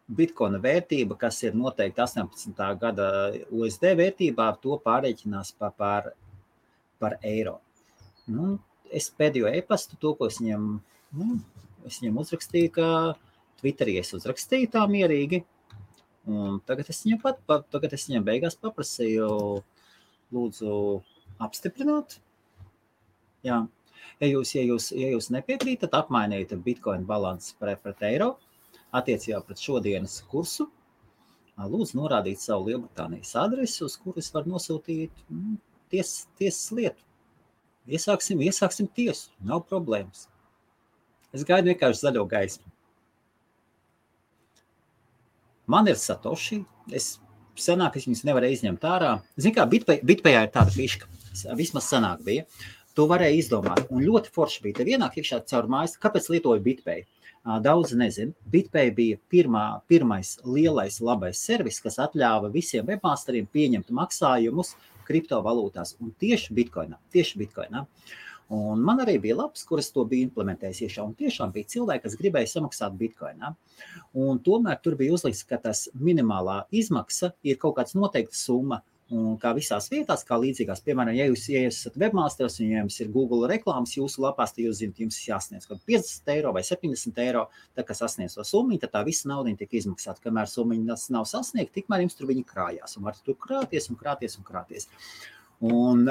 bitcoina vērtība, kas ir noteikti 18. gada USD vērtībā, to pārreikinās par eiro. Es pēdējo e-pastu, to, ko es viņam uzrakstīju, ka Twitterī es uzrakstīju tā mierīgi. Un tagad es viņam beigās paprasīju, lūdzu, apstiprināt. Jā. Ja jūs nepiekrītat, apmainiet bitcoin balansi pret eiro, attiecībā pret šodienas kursu, lūdzu norādīt savu Lielbritānijas adresi, uz kuru es varu nosūtīt tiesas lietu. Iesāksim tiesu, nav problēmas. Es gaidu vienkārši zaļo gaismu. Man ir Satoshi, senāk es viņus nevarēju izņemt ārā. Zini kā, BitPayā ir tāda fiška, vismaz senāk bija. To varēja izdomāt, un ļoti forši bija. Te vienāk iekšā caur mājas, kāpēc lietoju BitPay? Daudz nezinu. BitPay bija pirmais lielais labais servis, kas atļāva visiem webmasteriem pieņemt maksājumus kriptovalūtās, un tieši bitcoinā. Un man arī bija labs, kuras to bija implementējis iekšā, un tiešām bija cilvēki, kas gribēja samaksāt bitcoinā. Un tomēr tur bija uzlikts, ka tas minimālā izmaksa ir kaut kāds noteikta summa, un kā visās vietās, kā līdzīgās, piemēram, ja jūs esat webmasters un ja jums ir Google reklāmas jūsu lapās, tad jūs zināt, jums jāsniedz kaut 50 eiro vai 70 eiro, tā kā sasniedz to summiņu, tad tā visa naudiņa tiek izmaksāta. Kamēr summiņa nav sasniegta, tikmēr jums tur viņi krājās un var tur krāties. Un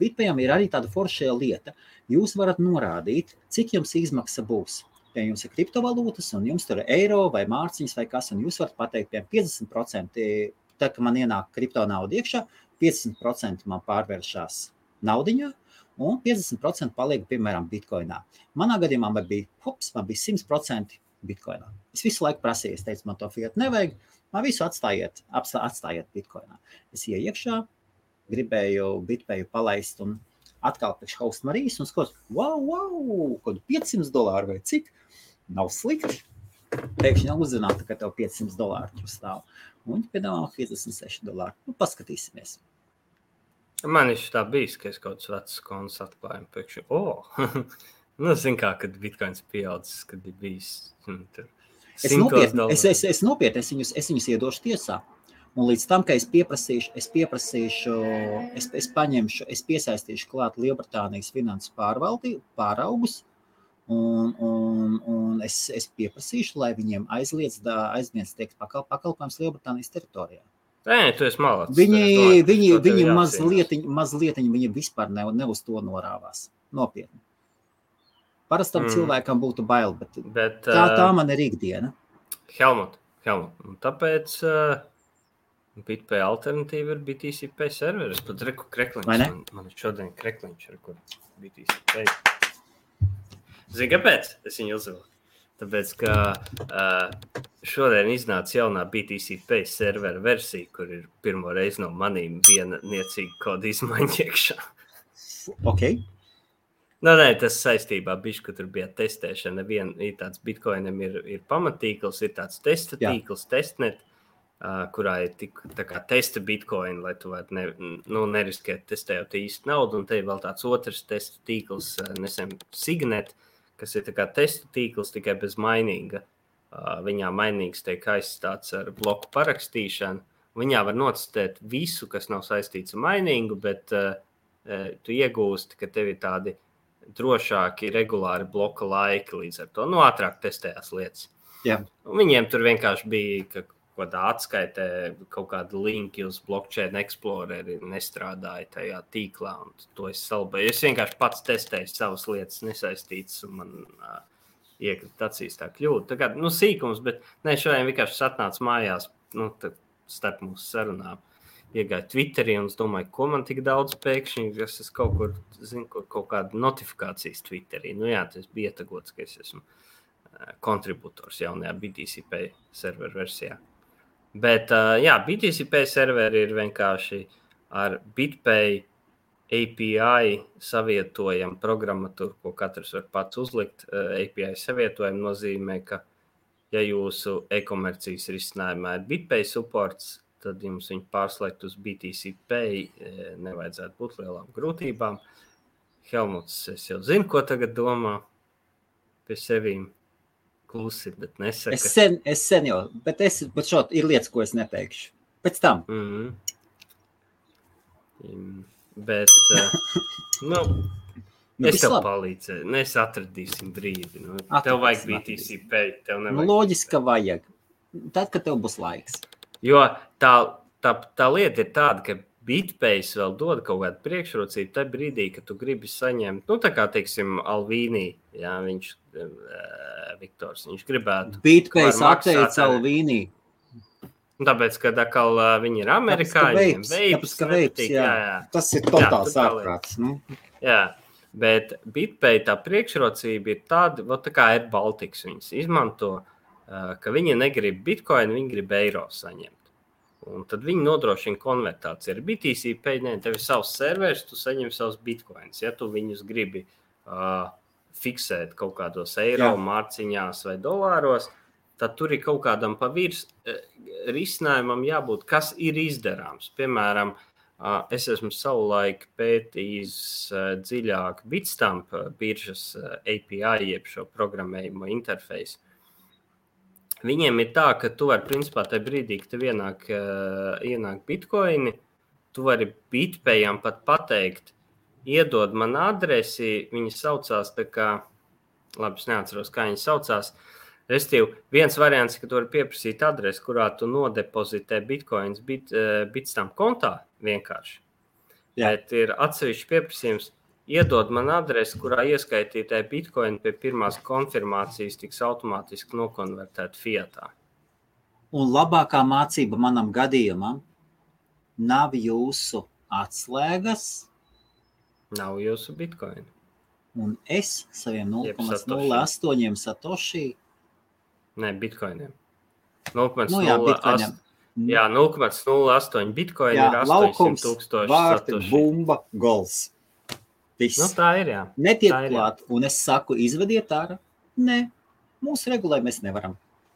BitPayam ir arī tāda foršajā lieta. Jūs varat norādīt, cik jums izmaksa būs. Ja jums ir kriptovalūtas un jums tur ir eiro vai mārciņas vai kas, un jūs varat pateikt, piemēram, 50%, tā, ka man ienāk kripto nauda iekšā, 50% man pārvēršās naudiņā un 50% paliek, piemēram, bitcoinā. Manā gadījumā man bija 100% bitcoinā. Es visu laiku prasīju, es teicu, man to fiat nevajag, man visu atstājiet bitcoinā. Es ieju iekšā, gribēju BitPayu palaist un atkal pēc Host Marijas un skatos, wow, kaut $500 vai cik, nav slikti. Pēkšņi uzzinātu, ka tev $500 tur stāv. Un viņi piedāvā $56. Paskatīsimies. Man ir tā bijis, ka es kaut kāds vecs konts atklājumu pēkšņi. Zin kā, kad bitcoins pieaudzis, kad ir bijis Es nopietni, es viņus iedošu tiesā. Un līdz tam, ka es piesaistīšu klāt Lielbritānijas finanses pāraugus, un es pieprasīšu, lai viņiem aizliedz tiek pakalpojums Lielbritānijas teritorijā. Nē, tu esi malāts. Viņi mazliet viņi vispār ne uz to norāvās. Nopietni. Parastam cilvēkam būtu bail, bet tā man ir ikdiena. Helmut, un tāpēc BitPay alternatīva ir BTCP serveris. Pat reku krekliņš. Man ir šodien krekliņš, ar kur BTCP. Zini, kāpēc es viņu uzvilku? Tāpēc, ka šodien iznāca jaunā BTCP servera versija, kur ir pirmo reizi no manīm viena niecīga koda izmaiņa iekšā. Ok. Nē, tas saistībā bišķi, ka tur bija testēšana. Ir tāds Bitcoinam ir pamatīkls, ir tāds testa tīkls, testnet, kurā ir tā kā testa Bitcoin, lai tu varētu neriskēt testējot īsti naudu, un te ir vēl tāds otrs testa tīkls, nesen Signet, kas ir tā kā testa tīkls tikai bez mainīga. Viņā mainīgs tiek aizstāts ar bloku parakstīšanu. Viņā var notestēt visu, kas nav saistīts ar mainīgu, bet tu iegūsti, ka tev ir tādi drošāki, regulāri bloka laiki līdz ar to. Ātrāk testējās lietas. Jā. Un viņiem tur vienkārši bija, ka kādā atskaitē kaut kāda linki uz Blockchain Exploreri nestrādāja tajā tīklā, un to es salbēju. Es vienkārši pats testēju savas lietas nesaistītas, un man iekrita acīs tā kļūda. Tā kā, sīkums, bet šodien vienkārši atnāca mājās, starp mūsu sarunām. Iegāju Twitterī, un es domāju, ko man tik daudz pēkšņi, es kaut kur, kaut kāda notifikācijas Twitterī. Tas bija ietagots, ka es esmu kontributors jaunajā BTCP serveru versijā. Bet, BTCP serveri ir vienkārši ar BitPay API savietojam programmatūru, ko katrs var pats uzlikt. API savietojam nozīmē, ka, ja jūsu e-komercijas risinājumā ir BitPay supports, tad jums viņu pārslēgt uz BTCP nevajadzētu būt lielām grūtībām. Helmuts, es jau zinu, ko tagad domā pie sevīm. Klusi, bet nesaka. Es sen jau, bet šot ir lietas, ko es neteikšu. Pēc tam. Bet, es tev palīdzēju. Mēs atradīsim brīdi. Tev vajag BTCP, tev nevajag. Loģiski, ka vajag. Tad, kad tev būs laiks. Jo tā lieta ir tāda, ka BitPay vēl dod kaut kādu priekšrocību tajā brīdī, kad tu gribi saņemt, tā kā, teiksim, Alvīnī, viņš Viktors, viņš gribētu. BitPay atteica Alvīnī. Tāpēc, kad atkal viņi ir amerikāņi, veips, jā. Tas ir totāls ārprāts. Jā, bet BitPay tā priekšrocība ir tāda, tā kā ir Baltics viņas izmanto, ka viņi negrib Bitcoin, viņi grib eiro saņemt. Un tad viņi nodrošina konvertāciju. Ar BTCP, tev ir savs serveris, tu saņem savus bitcoins. Ja tu viņus gribi fiksēt kaut kādos eiro, mārciņās vai dolāros, tad tur ir kaut kādam pavirs risinājumam jābūt, kas ir izdarāms. Piemēram, es esmu savulaik pētījis dziļāk Bitstamp biržas API, jeb šo programmējumu interfeisu. Viņiem ir tā, ka tu vari, principā, tajā brīdī, kad tev ienāk bitcoini, tu vari BitPayam pat pateikt, iedod man adresi, viņi saucās tā kā, labi, es neatceros, kā viņi saucās, restīvi, viens variants, ka tu vari pieprasīt adresi, kurā tu nodepozitē bitcoins Bitstamp kontā vienkārši. Jā. Bet ir atsevišķi pieprasījums, iedod man adresi, kurā ieskaitītē bitcoin pie pirmās konfirmācijas tiks automātiski nokonvertēt fiatā. Un labākā mācība manam gadījumam nav jūsu atslēgas. Nav jūsu bitcoin. Un es saviem 0,08 satoshi. Nē, bitcoiniem. 0,08. Jā, 0,08 bitcoin ir 800,000 vārti, bumba, gols. Viss. Tā ir, jā. Netiek klāt, un es saku, izvediet ārā. Nē, mūsu regulē mēs nevaram.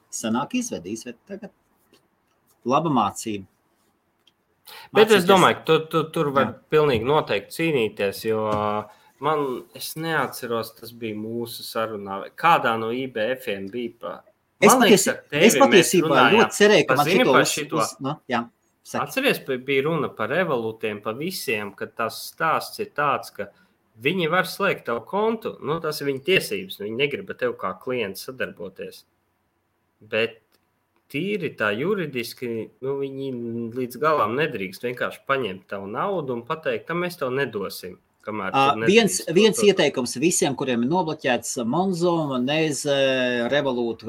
Sanāk izved tagad. Laba mācība. Bet es domāju, ka tu tur var pilnīgi noteikti cīnīties, jo es neatceros, tas bija mūsu sarunā. Kādā no IBF-iem bija Es patiesībā ļoti cerēju, ka man šito Atceries, bija runa par Revolūtiem, par visiem, ka tas stāsts ir tāds, ka viņi var slēgt tavu kontu, tas ir viņa tiesības, viņi negrib ar tev kā klients sadarboties. Bet tīri tā juridiski, viņi līdz galām nedrīkst vienkārši paņemt tavu naudu un pateikt, ka mēs tev nedosim. Viens ieteikums visiem, kuriem ir nobloķēts Monzo, Monese, Revolut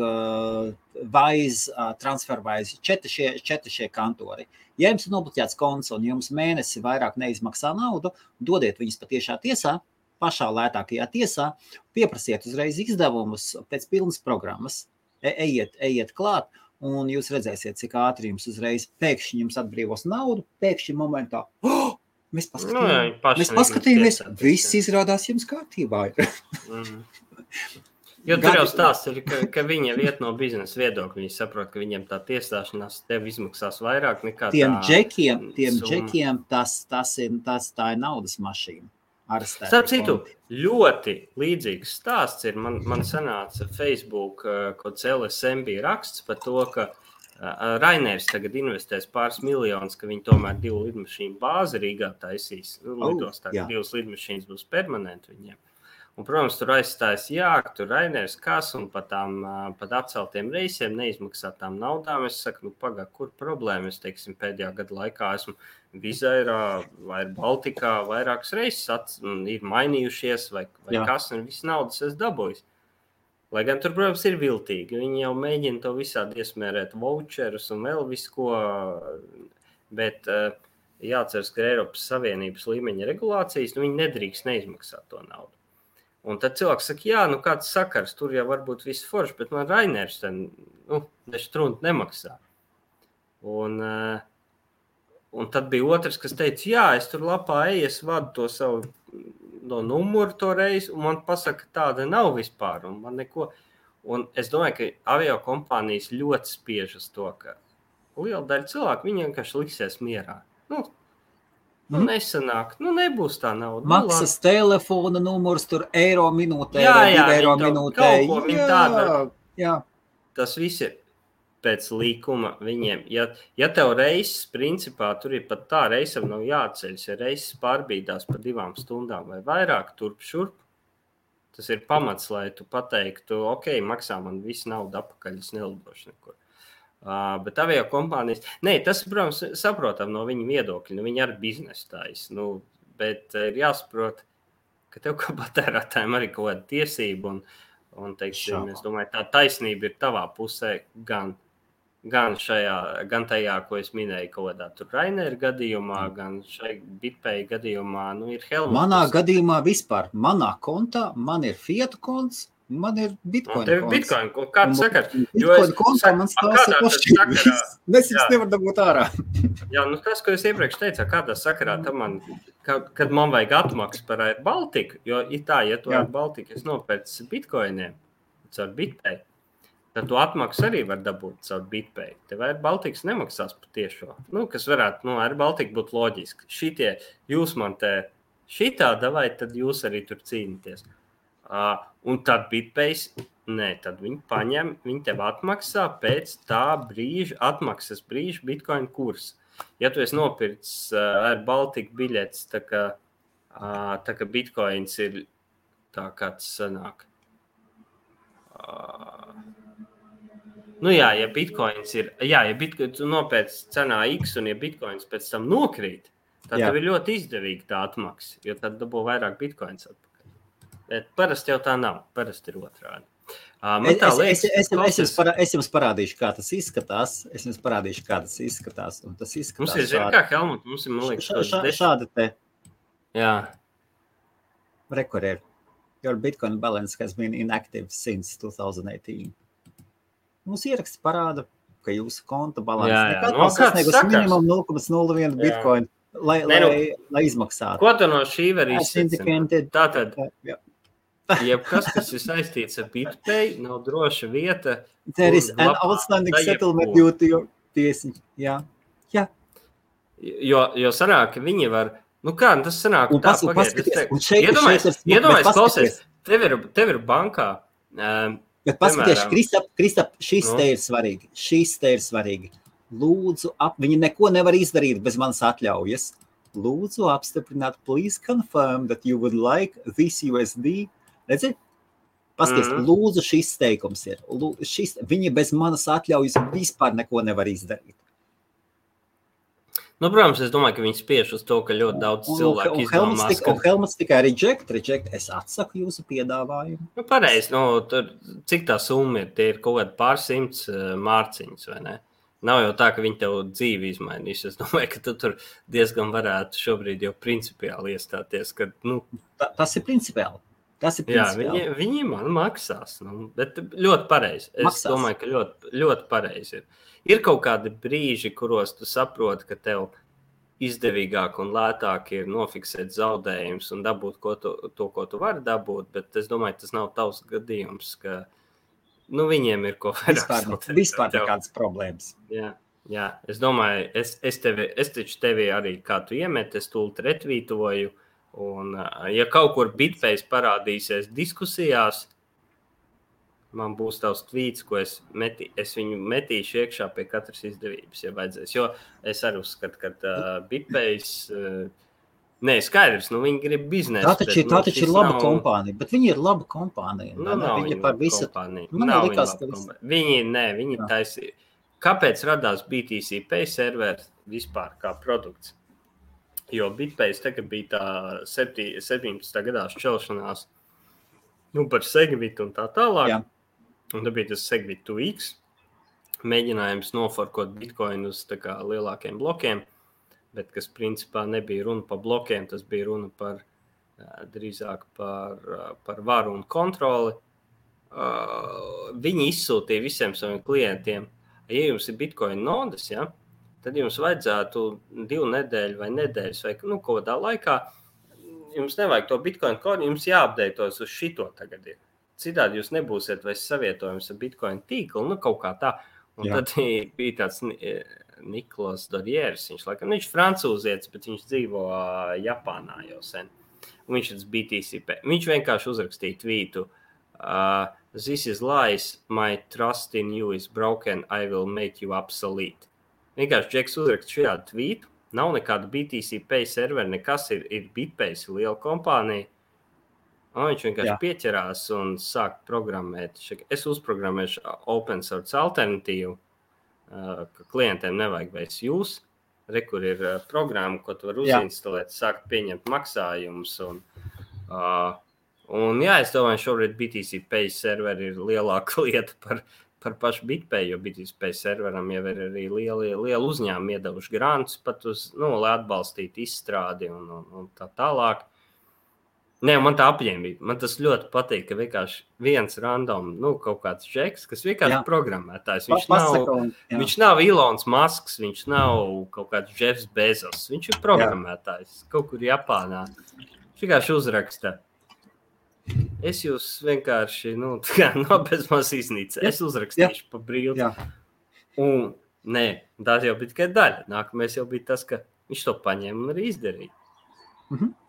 Wise, TransferWise, četri šie kantori. Ja jums ir nobloķēts konts un jums mēnesi vairāk neizmaksā naudu, dodiet viņus patiešā tiesā, pašā lētākajā tiesā, pieprasiet uzreiz izdevumus pēc pilnas programmas, ejiet klāt, un jūs redzēsiet, cik ātri jums uzreiz pēkšņi jums atbrīvos naudu, pēkšņi momentā, mēs paskatījāmies, viss izrādās jums kārtībā. Jo tur jau stāsts ir, ka viņi iet no biznesa viedokļa. Viņi saprot, ka viņiem tā tiesāšanās tev izmaksās vairāk nekā tiem džekiem tā ir naudas mašīna. Starp citu, ļoti līdzīgs stāsts ir. Man sanāca Facebook, kaut LSMB raksts par to, ka Rainers tagad investēs pāris miljonus, ka viņi tomēr 2 lidmašīnu bāzi Rīgā taisīs. Lidos tagad 2 lidmašīnas būs permanenti viņiem. Un, protams, tur aizstājas tur Rainers kas un pat atceltiem reisiem neizmaksātām naudām. Es saku, pagā, kur problēma? Es, teiksim, pēdējā gada laikā esmu Vizairā vai Baltikā vairākas reizes ir mainījušies vai kas, un viss naudas es dabūju. Lai gan tur, protams, ir viltīgi. Viņi jau mēģina to visādi iesmērēt voucherus un vēl visu ko, bet jāatceras, ka Eiropas Savienības līmeņa regulācijas, viņi nedrīkst neizmaksāt to naudu. Un tad cilvēks saka, kāds sakars, tur jau varbūt viss forši, bet man Rainers nestrunti nemaksā. Un tad bija otrs, kas teica, es tur lapā es vadu to savu numuru to reizi, un man pasaka, tāda nav vispār, un man neko. Un es domāju, ka avio kompānijas ļoti spiež uz to, ka liela daļa cilvēku, viņi vienkārši liksies mierā. Nesanāk, nebūs tā nauda. Maksas telefona numurs, tur eiro minūtē, eiro minūtē. Jā. Tas viss ir pēc līkuma viņiem. Ja tev reises, principā, tur ir pat tā reisam nav jāceļas, ja reises pārbīdās par 2 stundām vai vairāk turp šurp, tas ir pamats, lai tu pateiktu, maksā man visu naudu apakaļ, es nelidošu nekur. Bet avio kompānijas, tas, protams, saprotam no viņa viedokļa, viņi arī biznesu taisa, bet ir jāsaprot, ka tev kā patērētājiem arī kaut kāda tiesība, un teiksim, es domāju, tā taisnība ir tavā pusē gan tajā, ko es minēju, kaut kādā tur Rainer gadījumā, gan šai BitPay gadījumā, ir Helmut. Manā gadījumā vispār, manā kontā, man ir Fiat konts, man ir Bitcoin konts. Tev ir Bitcoin, kāds sakars? Bitcoin kontā man stāsta pošķi. Es jums nevaru dabūt ārā. Jā, tas, ko es iepriekš teicu, kādā sakarā tam kad man vajag atmaksu par Air Baltiku, jo ja tu Air Baltiku es nopērcu Bitcoiniem caur BitPay, tad tu atmaksu arī var dabūt caur BitPay. Tev Air Baltikas nemaksās par tiešo. Kas varētu, Air Baltika būtu loģiski. Šitie, jūs man te šitā davai, tad jūs arī tur cīnīties. Un tad BitPay, tad viņi paņem, viņi tev atmaksā pēc tā brīža, atmaksas brīža Bitcoin kursa. Ja tu esi nopircis Air Baltica biļetes, tā ka Bitcoins ir tā kāds sanāk. Ja Bitcoins ir, ja Bitcoins tu nopērci cenā X un ja Bitcoins pēc tam nokrīt, tad tev ir ļoti izdevīgi tā atmaksa, jo tad dabū vairāk Bitcoins atpakaļ. Bet parasti jau tā nav, parasti ir otrādi. Es jums parādīšu, kā tas izskatās. Un tas izskatās mums ir kā Helmut, mums ir, man liekas, šāda te. Jā. Record. Your Bitcoin balance has been inactive since 2018. Mums ieraksts parāda, ka jūsu konta balans nekad nav sasniegus minimum 0,01 Bitcoin, lai izmaksātu. Ko tu no šī var izsacīt? Tātad, jebkas, kas ir saistīts ar BitPay, nav droša vieta. There is an outstanding settlement due to your tiesiņu. Jā. Jo sanāk, ka viņi var, tas sanāk, un tā pagaid. Iedomājies, klausies, tev ir bankā. Bet paskaties, Kristap, šis te ir svarīgi. Lūdzu, viņi neko nevar izdarīt bez manas atļaujas. Lūdzu, apstiprināt, please confirm that you would like this USD. Redzi? Paskaties, lūdzu, šis teikums ir. Viņi bez manas atļaujas vispār neko nevar izdarīt. Nu, protams, es domāju, ka viņi spiež uz to, ka ļoti daudz cilvēku izdomās, ka... Helmuts tikai reject, es atsaku jūsu piedāvājumu. Nu, pareizi, tur, cik tā summa ir, tie ir kaut kādi pārsimts mārciņas, vai ne? Nav jau tā, ka viņi tev dzīvi izmainīs. Es domāju, ka tu tur diezgan varētu šobrīd jau principiāli iestāties, ka, Tas ir principiāli. Jā, viņi man maksās, bet ļoti pareizi. Es domāju, ka ļoti, ļoti pareizi ir. Ir kaut kādi brīži, kuros tu saproti, ka tev izdevīgāk un lētāk ir nofiksēt zaudējumus un dabūt to, ko tu vari dabūt, bet es domāju, tas nav tavs gadījums, ka viņiem ir ko vairāk. Vispār nekādas problēmas. Jā, es domāju, es taču tevi arī kā tu iemet, es tūlīt retvītoju, un ja kaut kur Bitpace parādīsies diskusijās, man būs tavs tvīts, ko es viņu metīšu iekšā pie katras izdevības, ja vajadzēs. Jo es arī uzskatu, ka Bitpace, skaidrs, viņi grib biznesu. Tā taču ir laba kompānija, bet viņi ir laba kompānija. Nav viņi par visu kompāniju. Viņi taisīja. Kāpēc radās BTC Pay serveri vispār kā produkts? Jo Bitpace tagad bija tā 17. gadā šķelšanās par Segwit un tā tālāk. Jā. Un tad bija tas Segwit 2X, mēģinājums noforkot Bitcoin uz tā kā lielākiem blokiem, bet kas principā nebija runa par blokiem, tas bija runa drīzāk par varu un kontroli. Viņi izsūtīja visiem saviem klientiem, ja jums ir Bitcoin nodas, tad jums vajadzētu 2 nedēļu vai nedēļas vai kaut kādā laikā, jums nevajag to Bitcoin kodu, jums jāapdeitos uz šito tagad ir. Citādi jūs nebūsiet vairs savietojums ar Bitcoin tīklu, kaut kā tā. Un tad bija tāds Niklas Dorjērs, viņš francūzietis, bet viņš dzīvo Japānā jau sen. Un viņš ir BTC. Viņš vienkārši uzrakstīja tvītu. This is lies, my trust in you is broken, I will make you obsolete. Vienkārši Džeks uzrakst šādu tvītu, nav nekāda BTC Pay serveri, nekas ir Bitpace, liela kompānija. Un viņš vienkārši pieķerās un sāk programmēt. Es uzprogrammēšu open source alternatīvu, ka klientiem nevajag vairs jūs. Kur ir programma, ko tu vari uzinstalēt, sākt pieņemt maksājumus. Es domāju, šobrīd BTC Pay serveri ir lielāka lieta par pašu Bitpay, jo BTC Pay serveram jau ir arī liela uzņēmuma iedevuši grantus pat uz, lai atbalstītu izstrādi un tā tālāk. Man tā apņēmība. Man tas ļoti patīk, ka vienkārši viens random, kaut kāds Džeks, kas vienkārši programmētājs. Viņš nav Elons Musks, viņš nav kaut kāds Jeffs Bezos. Viņš ir programmētājs kaut kur Japānā. Viņš vienkārši uzraksta. Es jūs vienkārši, bez maz iznīca. Es uzrakstīšu pa brīvu. Un, tā jau bija tikai daļa. Nākamais jau bija tas, ka viņš to paņēma un arī izdarīja.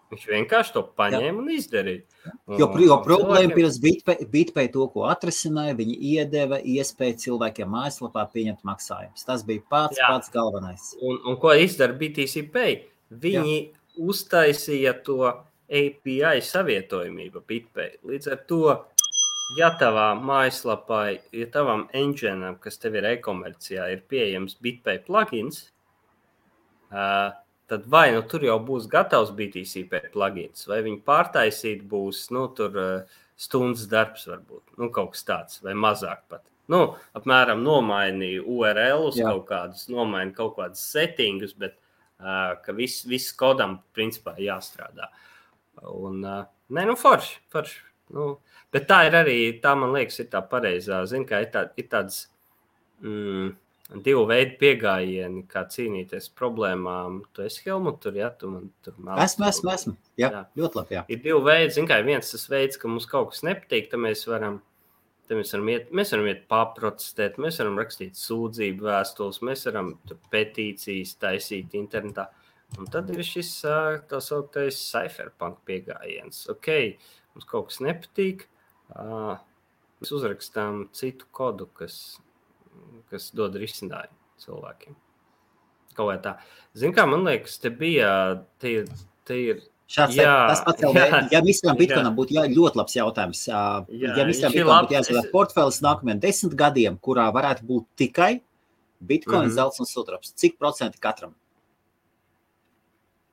Viņš vienkārši to paņēma un izdarīja. Jo problēma pirms Bitpay to, ko atrisināja, viņi iedeva iespēju cilvēkiem mājaslapā pieņemt maksājumus. Tas bija pats galvenais. Un ko izdara BTC Pay? Viņi uztaisīja to API savietojumību Bitpay. Līdz ar to, ja tavā mājaslapā, ja tavam engineam, kas tev ir e-komercijā, ir pieejams Bitpay plugins, tad vai tur jau būs gatavs BTC Pay plugins, vai viņi pārtaisīt būs, tur stundas darbs varbūt, kaut kas tāds, vai mazāk pat. Apmēram nomainīja URL-us kaut kādus, nomaina kaut kādus settingus, bet ka viss kodam principā jāstrādā. Un, forši. Bet tā ir arī, tā man liekas, ir tā pareizā, kā ir tāds... Divu veidu piegājieni, kā cīnīties problēmām. Tu esi Helmut, tur, tu man tur māc. Esmu. Jā, ļoti labi, Ir divu veidi, kā viens tas veids, ka mums kaut kas nepatīk, tad mēs varam iet paprotestēt, mēs varam rakstīt sūdzību vēstules, mēs varam petīcijas taisīt internetā. Un tad ir šis tā sauktais cypherpunk piegājiens. Mums kaut kas nepatīk, mēs uzrakstām citu kodu, kas dod risinājumu cilvēkiem. Kaut vai tā. Kā, man liekas, te ir... Šāds tas pats jau, ja Mr. Bitcoinam būtu ļoti labs jautājums. Ja Mr. Bitcoinam būtu jāizvēlēt portfēlis nākamajiem 10 gadiem, kurā varētu būt tikai Bitcoin, zelts un sudrabs, cik procenti katram?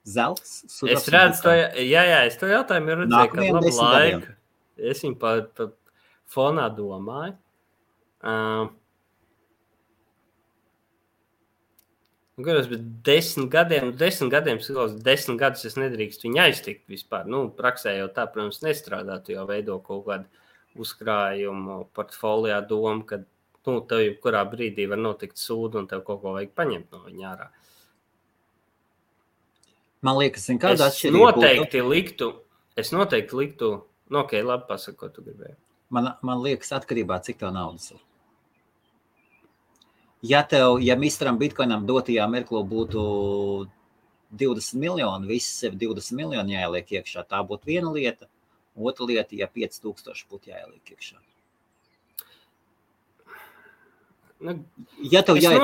Zelts, Es redzu to, es to jautājumu redzēju, kad labu laiku. Es viņu pa fonā domāju. Garos, bet 10 gadiem, 10 gadus es nedrīkst viņu aiztikt vispār. Praksē jau tā, protams, nestrādā. Tu jau veido kaut kādu uzkrājumu portfolijā domu, ka tev jebkurā brīdī var notikt sūdu un tev kaut ko vajag paņemt no viņa ārā. Man liekas, kāda atšķirība Es noteikti liktu, ok, labi pasaka, ko tu gribēji. Man liekas, atkarībā, cik tev naudas ir. Ja misteram Bitcoinam dotajā mirklī būtu 20 miljoni, visi sev 20 miljoni jāieliek iekšā, tā būtu viena lieta. Otra lieta, ja 5000 būtu jāieliek iekšā. Ja tev jāiet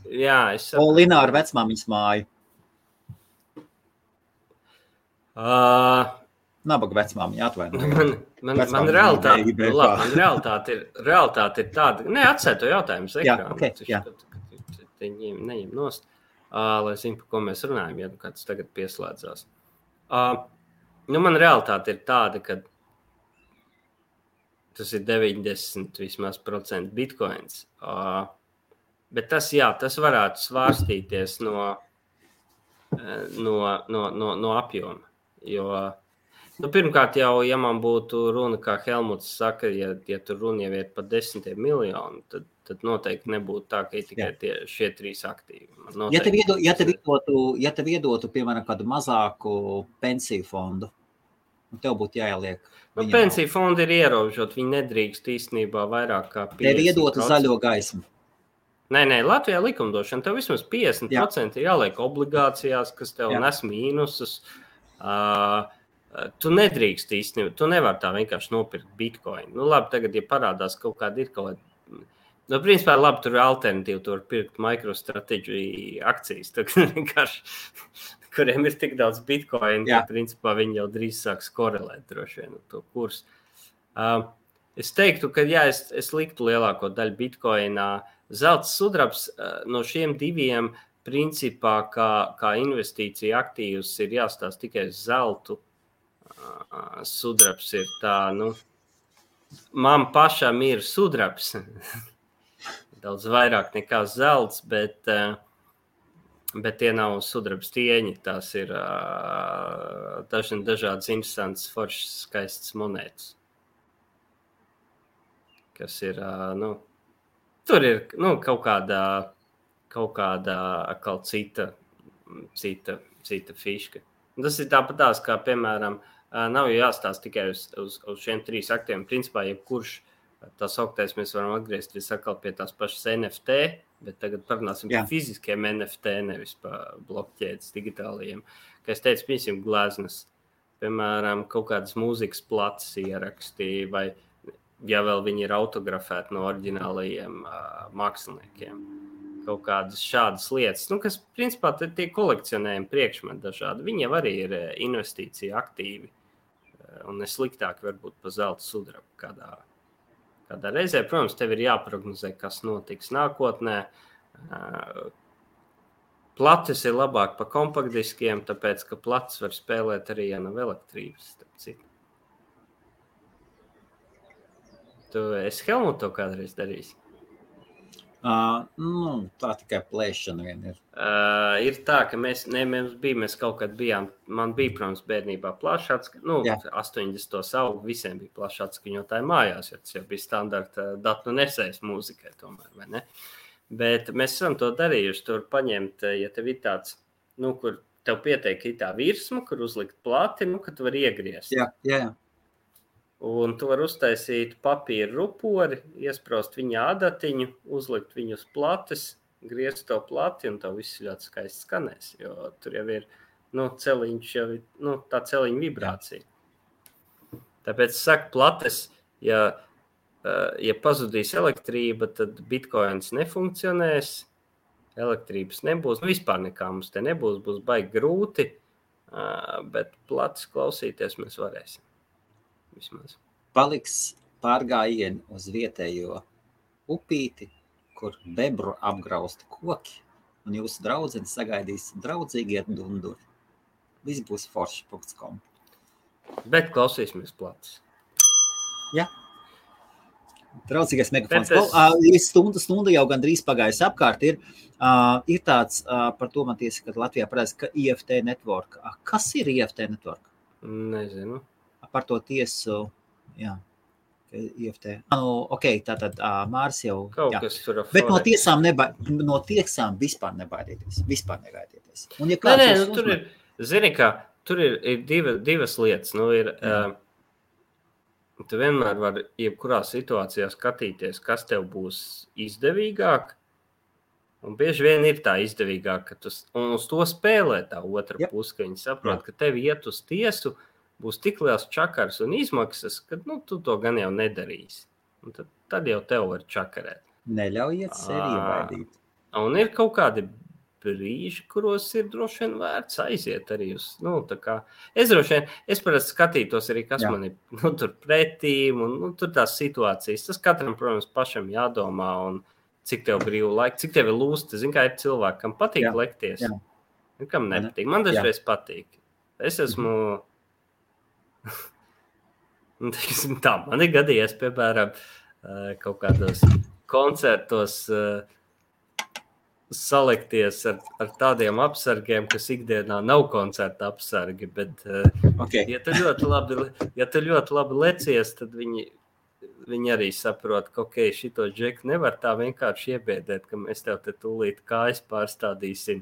Polinā ar vecmāmiņas māju. Nabaga vecmāmiņa atvainoja. Man realitāte ir tāda. Nē, atsēj to jautājumu uz ekrānu. Neņem nost, lai zinu, par ko mēs runājam, ja kāds tagad pieslēdzās. Man realitāte ir tāda, ka tas ir 90% vismaz % bitcoins. Bet tas varētu svārstīties no apjoma. Jo, pirmkārt jau, ja man būtu runa, kā Helmuts saka, ja tur runa jau ir par 10 miljonu, tad noteikti nebūtu tā, ka tikai šie 3 aktīvi. Ja tev iedotu, piemēram, kādu mazāku pensiju fondu, tev būtu jāieliek. Pensiju fondi ir ierobežot, viņi nedrīkst īstenībā vairāk kā 50%. Tev iedotu zaļo gaismu. Nē, Latvijā likumdošana, tev vismaz 50% ir jāliek obligācijās, kas tev nes mīnusus. Tu nedrīkst īstenībā, tu nevar tā vienkārši nopirkt Bitcoin. Labi, tagad, ja parādās kaut kāda ir kaut kāda, principā, labi, tur ir alternatīva, tu var pirkt MicroStrategy akcijas, vienkārši, kuriem ir tik daudz Bitcoin, ka, principā, viņi jau drīz sāks korelēt droši vien to kursu. Es teiktu, ka, es liktu lielāko daļu Bitcoinā. Zelts sudrabs no šiem diviem principā kā investīcija aktīvs ir jāstāsta tikai uz zeltu. Sudrabs ir tā, man pašam ir sudrabs. Daudz vairāk nekā zelts, bet tie nav sudrabs tieņi. Tās ir dažādas interesantas, foršas, skaistas monētas. Kas ir, tur ir kaut kāda atkal cita fiška. Tas ir tāpatās, kā, piemēram, nav jāstāsta tikai uz šiem 3 aktiem. Principā, jebkurš tā sauktais, mēs varam atgriezties atkal pie tās pašas NFT, bet tagad parunāsim par fiziskiem NFT, nevis par blokķēdes digitālajiem. Kā es teicu, piemēram, gleznas, piemēram, kaut kādas mūzikas plates ierakstī, vai ja vēl viņi ir autografēti no oriģinālajiem māksliniekiem. Kaut kādas šādas lietas, kas, principā, tie kolekcionējumi priekšmeti dažādi. Viņi jau arī ir investīcija aktīvi, un nesliktāk varbūt pa zelta sudrabu kādā reizē. Protams, tev ir jāprognozē, kas notiks nākotnē. Plates ir labāk pa kompaktdiskiem, tāpēc, ka plates var spēlēt arī, ja nav elektrības. Es Helmutu to kādreiz darīsi? Tā tikai plēšana vien ir. Ir tā, ka mēs kaut kad bijām, man bija, protams, bērnībā plašāts, 80. augu visiem bija plašāts skaņotāji mājās, jo tas jau bija standarta datu nesējs mūzikai tomēr, vai ne? Bet mēs esam to darījuši, tur paņemt, ja tev ir tāds, kur tev pieteik tā virsma, kur uzlikt plati, ka tu vari iegriezt. Jā. Un tu vari uztaisīt papīra rupori, iesprost viņa adatiņu, uzlikt viņu uz plates, griezt to plati, un tev viss ļoti skaisti skanēs, jo tur jau ir, celiņš jau ir, tā celiņa vibrācija. Tāpēc es saku, plates, ja pazudīs elektrība, tad bitcoins nefunkcionēs, elektrības nebūs, vispār nekā mums te nebūs, būs baigi grūti, bet plates klausīties mēs varēsim. Vismaz. Paliks pārgājieni uz vietējo upīti, kur bebru apgrausti koki, un jūsu draudzene sagaidīs draudzīgi iet dunduri. Viss būs forši.com. Bet klausīsimies plats. Jā. Draudzīgais megafons. Stunda jau gandrīz pagājis apkārt. Ir tāds, par to man tiesa, kad Latvijā parādās, ka IFT network. Kas ir IFT network? Nezinu. Par to tiesu, jā. IFT. Tātad Māris jau... Kaut kas tur Bet no tiesām vispār nebaidieties. Vispār negaidieties. Un, ja tur ir, zini kā, tur ir divas lietas. Tu vienmēr vari jebkurā situācijā skatīties, kas tev būs izdevīgāk. Un bieži vien ir tā izdevīgāk, ka un uz to spēlē tā otra puse, ka viņi saprot, ka tev iet uz tiesu, būs tik liels čakars un izmaksas, ka tu to gan jau nedarīsi. Un tad jau tev var čakarēt. Neļaujiet sevi iebaidīt. Un ir kaut kādi brīži, kuros ir droši vien vērts aiziet arī uz, es parasti skatītos arī, kas man ir, tur pretīm, un tur tās situācijas. Tas katram, protams, pašam jādomā, un cik tev brīvu laiku, cik tev ir lūsti. Zini, kā ir cilvēki, kam patīk lekties, un kam nepatīk. Man dažreiz patīk. Es esmu, tā, man ir gadījies, piemēram, kaut kādos koncertos, salikties ar tādiem apsargiem, kas ikdienā nav koncerta apsargi, bet ja tu ļoti labi lecies, tad viņi arī saprot, ka šito džeku nevar tā vienkārši iebiedēt, ka mēs tev te tūlīt kājas pārstādīsim.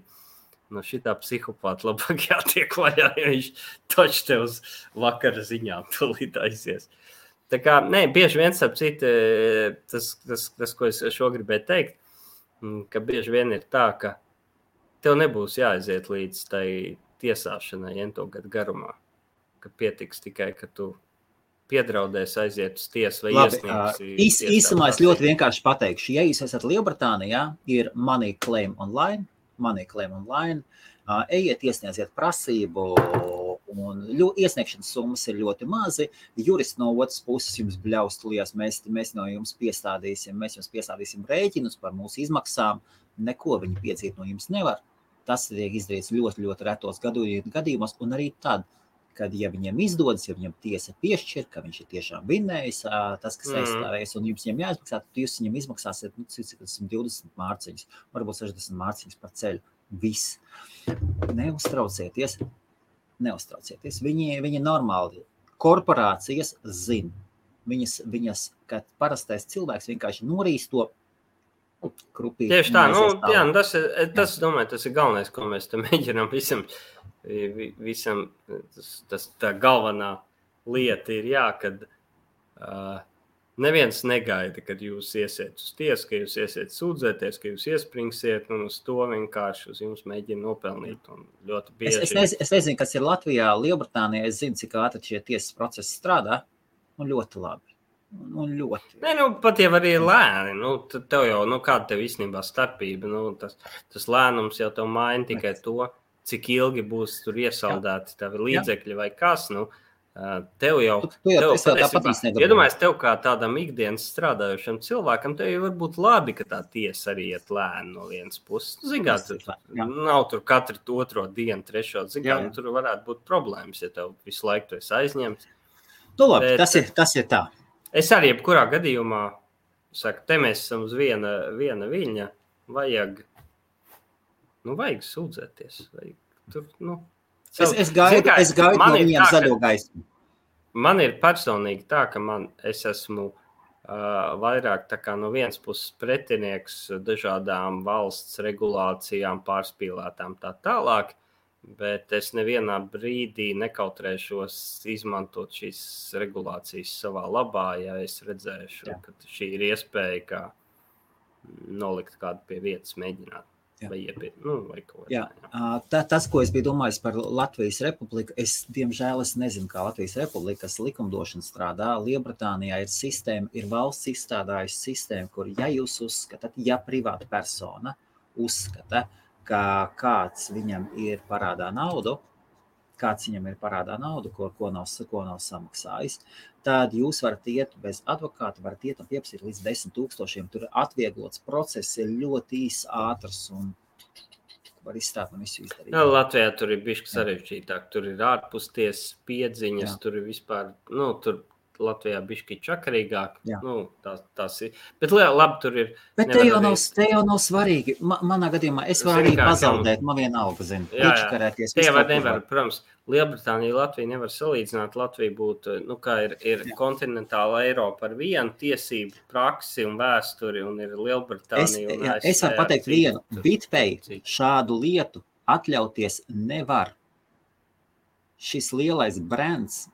No šitā psihopāta labāk jātiek vaļā, ja viņš toč tev uz vakara ziņām tūlīt aizies. Tā kā, bieži viens ap citu, tas, ko es šo gribēju teikt, ka bieži vien ir tā, ka tev nebūs jāaiziet līdz tai tiesāšanai 1 gadu garumā, ka pietiks tikai, ka tu piedraudēsi aiziet uz tiesu vai iesniegsi. Īsumā es ļoti vienkārši pateikšu, ja jūs esat Lielbritānijā, ir Money Claim Online, ejiet iesniedziet prasību, un iesniegšanas summas ir ļoti mazi, juristi no otras puses jums bļaus tulījās, mēs no jums piestādīsim rēķinus par mūsu izmaksām, neko viņi piedzīt no jums nevar. Tas tiek izdarīts ļoti, ļoti retos gadījumos, un arī tad, kad ja viņiem izdodas, ja viņam tiesa piešķir, ka viņš ir tiešām vinnējis, tas, kas aizstāvējas, un jums viņam jāizmaksā, tad jūs viņam izmaksāsiet 120 mārciņas, varbūt 60 mārciņas par ceļu. Viss. Neuztraucieties. Viņi normāli. Korporācijas zina. Viņas, kad parastais cilvēks vienkārši norīs to krupīt. Tieši tā, tas, domāju, tas ir galvenais, ko mēs te mēģinām visam tā galvenā lieta ir, kad neviens negaida, kad jūs iesiet uz tiesu, ka jūs iesiet sūdzēties, ka jūs iespringsiet, un uz to vienkārši uz jums mēģina nopelnīt. Un ļoti bieži. Es nezinu, kas ir Latvijā, Lielbritānijā, es zinu, cik ātri šie tiesas procesi strādā, un ļoti labi. Pat jau arī lēni, tev jau, kāda tev īstenībā starpība, tas lēnums jau tev maina tikai to, cik ilgi būs tur iesaldēti tavi līdzekļi vai kas, tev jau, iedomājies tev kā tādam ikdienas strādājušam cilvēkam, tev jau varbūt labi, ka tā tiesa arī iet lēni no vienas puses. Nav tur katru 2. dienu, 3. ziņā, tur varētu būt problēmas, ja tev visu laiku tu esi aizņemts. Labi, tas ir tā. Es arī jebkurā gadījumā saku, te mēs esam uz viena viļņa, vajag sūdzēties. Es gaidu no viņiem zaļo gaismu. Man ir personīgi tā, ka es esmu vairāk tā kā no vienas puses pretinieks dažādām valsts regulācijām, pārspīlētām tā tālāk, bet es nevienā brīdī nekautrēšos izmantot šīs regulācijas savā labā, ja es redzēšu, ka šī ir iespēja, kā nolikt kādu pie vietas mēģināt. Vai kaut kā. Tas, ko es biju domājis par Latvijas Republiku, diemžēl nezinu, kā Latvijas Republikas likumdošana strādā. Lielbritānijā ir sistēma, ir valsts izstrādājusi sistēmu, kur, ja jūs uzskatāt, ja privāta persona uzskata, ka kāds viņam ir parādā naudu, ko nav samaksājis, tad jūs varat iet bez advokāta, varat iet un pieprasīt līdz 10 000. Tur atvieglots process ir ļoti ātrs un var izstrādāt un visu izdarīt. Jā, Latvijā tur ir bišķi sarežģītāk. Tur ir ārpustiesas piedziņas, tur ir vispār, tur Latvijā bišķi čakarīgāk. Tās ir. Bet labi, tur ir. Bet te jau nav svarīgi. Manā gadījumā es varu arī pazaudēt, man vienalga, zinu. Iečakarēties. Te jau nevar, protams, Lielbritānija, Latvija nevar salīdzināt. Latvija būtu, kā ir kontinentāla Eiropa ar vienu tiesību praksi un vēsturi, un ir Lielbritānija un ASV. Es varu pateikt vienu. BitPay šādu lietu atļauties nevar. Šis lielais brands,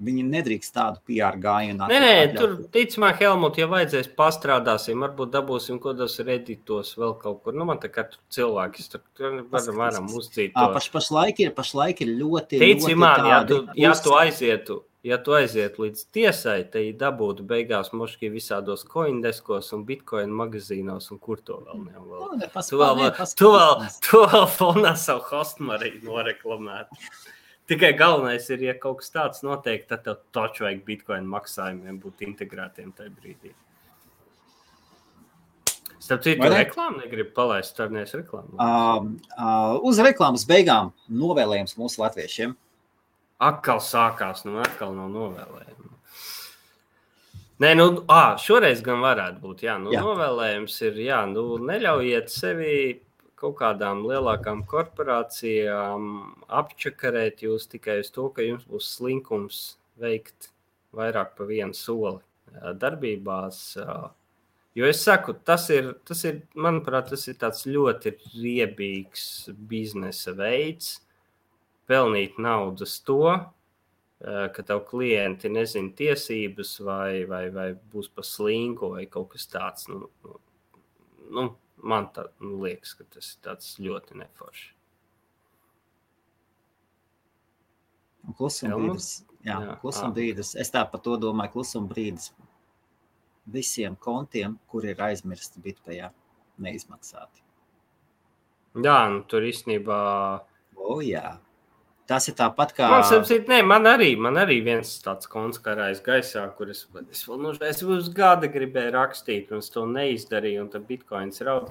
viņi nedrīkst tādu PR gājienu. Nē, tur, ticamā, Helmut, ja vajadzēs pastrādāsim, varbūt dabūsim kodos Redditos vēl kaut kur. Man tā kā tur cilvēki, tur varam uzdzīt to. Pašlaik ir ļoti, ticamā, ļoti tādi. Ja tu aizietu līdz tiesai, te dabūtu beigās moški visādos coindeskos un bitcoin magazīnos un kur to vēl nevar. Tu vēl fonā savu hostmariju noreklamētu. Tikai galvenais ir, ja kaut kas tāds notiek, tad tev taču vajag bitcoin maksājumiem būt integrētiem tajā brīdī. Starp citu, reklāmu negribu palaist, starnies reklāmu. Uz reklāmas beigām novēlējums mūsu latviešiem. Atkal sākās, atkal nav novēlējumi. Nē, šoreiz gan varētu būt, novēlējums ir, neļaujiet sevi kaut kādām lielākām korporācijām apčakarēt jūs tikai uz to, ka jums būs slinkums veikt vairāk pa vienu soli darbībās. Jo es saku, tas ir, manuprāt, tas ir tāds ļoti riebīgs biznesa veids, pelnīt naudas to, ka tev klienti nezina tiesības vai būs pa slinku vai kaut kas tāds. Man tā liekas, ka tas ir tāds ļoti neforši. Klusuma brīdis. Es tā par to domāju, klusuma brīdis visiem kontiem, kur ir aizmirsti BitPayā, neizmaksāti. Jā, tur īstenībā... Tas ir tāpat kā... Man arī viens tāds konts karājas gaisā, kur es uz gada gribēju rakstīt, un es to neizdarīju, un tad bitcoins raud.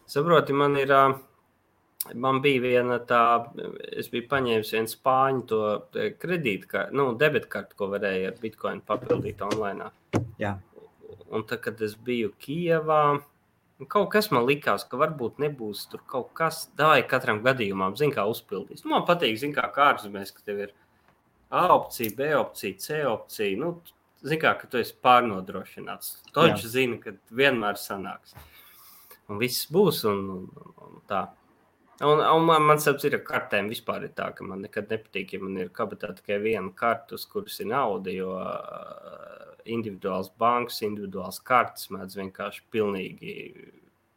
Saproti, man bija viena tā, es biju paņēmis vienu spāņu to kredītkartu, debitkartu, ko varēja ar bitcoin papildīt online. Jā. Un tad, kad es biju Kijevā, kaut kas man likās, ka varbūt nebūs tur kaut kas, davai katram gadījumam, zin kā uzpildīs. Man patīk, zin kā ārzemēs, ka tev ir A opcija, B opcija, C opcija. Zin kā, ka tu esi pārnodrošināts. Toči zina, ka vienmēr sanāks. Un viss būs un tā. Un man saps ir ar kartēm vispār ir tā, ka man nekad nepatīk, ja man ir kabatā tikai viena karta, uz kuras ir nauda, jo individuāls bankas, individuāls kartes mēdz vienkārši pilnīgi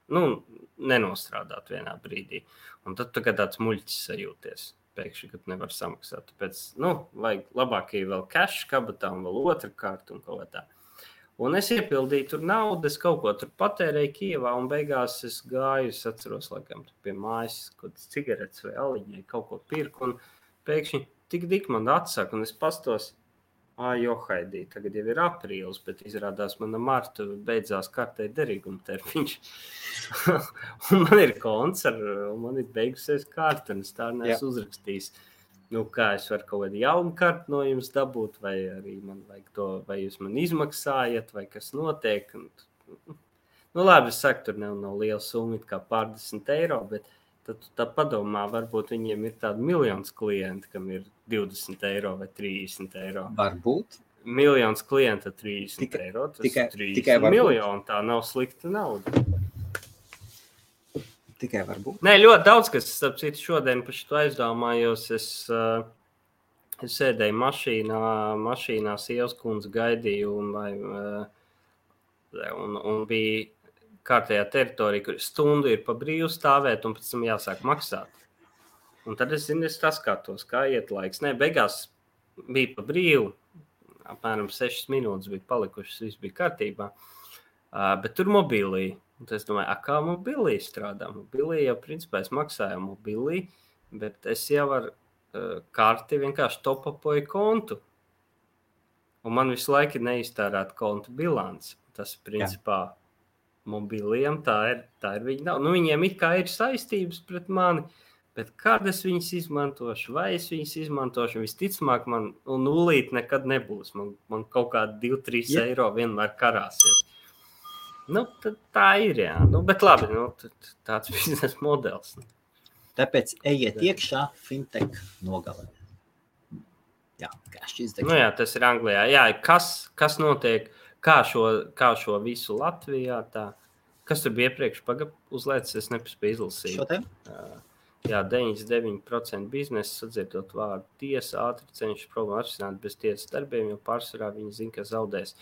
nenostrādāt vienā brīdī. Un tad tu kā tāds muļķis sajūties pēkšņi, kad nevar samaksāt. Tāpēc, vajag labāk ir vēl cash kabatā un vēl otra karta un kaut tā. Un es iepildīju tur naudu, es kaut ko tur patērēju Kijevā un beigās es gāju, es atceros, laikam, pie mājas, kaut kāds cigaretes vai aliņai, kaut ko pirku un pēkšņi tik man atsaka un es pastos, johaidī, tagad jau ir aprīlis, bet izrādās mana marta beidzās kartē derīguma termiņš. Un man ir konts, un man ir beigusies karta, un es tā neesmu uzrakstījis. Kā es varu kaut kādu jaunu kartu no jums dabūt, vai arī man vajag to, vai jūs man izmaksājat, vai kas notiek. Labi, es saku, tur nav liela summa, kā pārdesmit eiro, bet tad tā padomā, varbūt viņiem ir tādi miljonus klienti, kam ir 20 eiro vai 30 eiro. Varbūt. Miljonus klienta 30 eiro, tas ir 30 miljoni, tā nav slikta nauda. Tikai varbūt. Nē, ļoti daudz, kas, starp citu, šodien par šito aizdomājos, es sēdēju mašīnā sievas kundze gaidīju un bija kārtējā teritorija, kur stundu ir pa brīvu stāvēt un pēc tam jāsāk maksāt. Un tad es skatos, kā iet laiks. Nē, beigās bija pa brīvu, apmēram 6 minūtes bija palikušas, viss bija kārtībā, bet tur mobilī. Un es domāju, kā mobilī strādā? Mobilī jau principā es maksāju mobilī, bet es jau ar karti vienkārši topapoju kontu. Un man visu laiku ir neiztērēt kontu bilants. Tas principā mobiliem, tā ir viņa nav. Nu, viņiem it kā ir saistības pret mani, bet kad es viņas izmantošu, vai es viņas izmantošu, visticamāk man nulīt nekad nebūs. Man kaut kādi 2-3 eiro vienmēr karāsies. Nu, tā ir, jā. Nu, bet labi, tāds biznesa modelis. Tāpēc ejiet iekšā fintech nogalē. Jā, cash izdegšana. Nu jā, tas ir Anglijā. Jā, kas notiek, kā šo visu Latvijā, tā. Kas tur bija iepriekš uzlēcis, es nepaspēju izlasīt. Šodien? Jā, 99% biznesa sadzirdot vārdu tiesa, ātri cenšas problēmu atrisināt bez tiesas darbiem, jo pārsvarā viņi zina, ka zaudēs.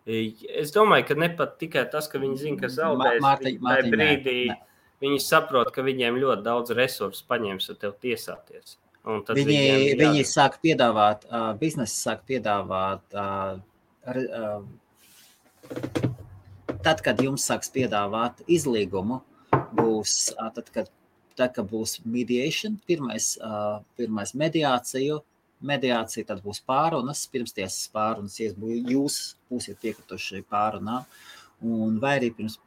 Es domāju, ka ne pat tikai tas, ka viņi zina, ka zaudēs, tajā brīdī viņi saprot, ka viņiem ļoti daudz resursu paņems ar tev tiesāties. Viņi sāk piedāvāt, biznesi sāk piedāvāt, tad, kad jums sāks piedāvāt izlīgumu, būs, tad, kad būs mediation, pirmais mediācija, tad būs pārunas, pirmstiesas pārunas, ja jūs būsiet piekrituši pārunā, un vai arī pirms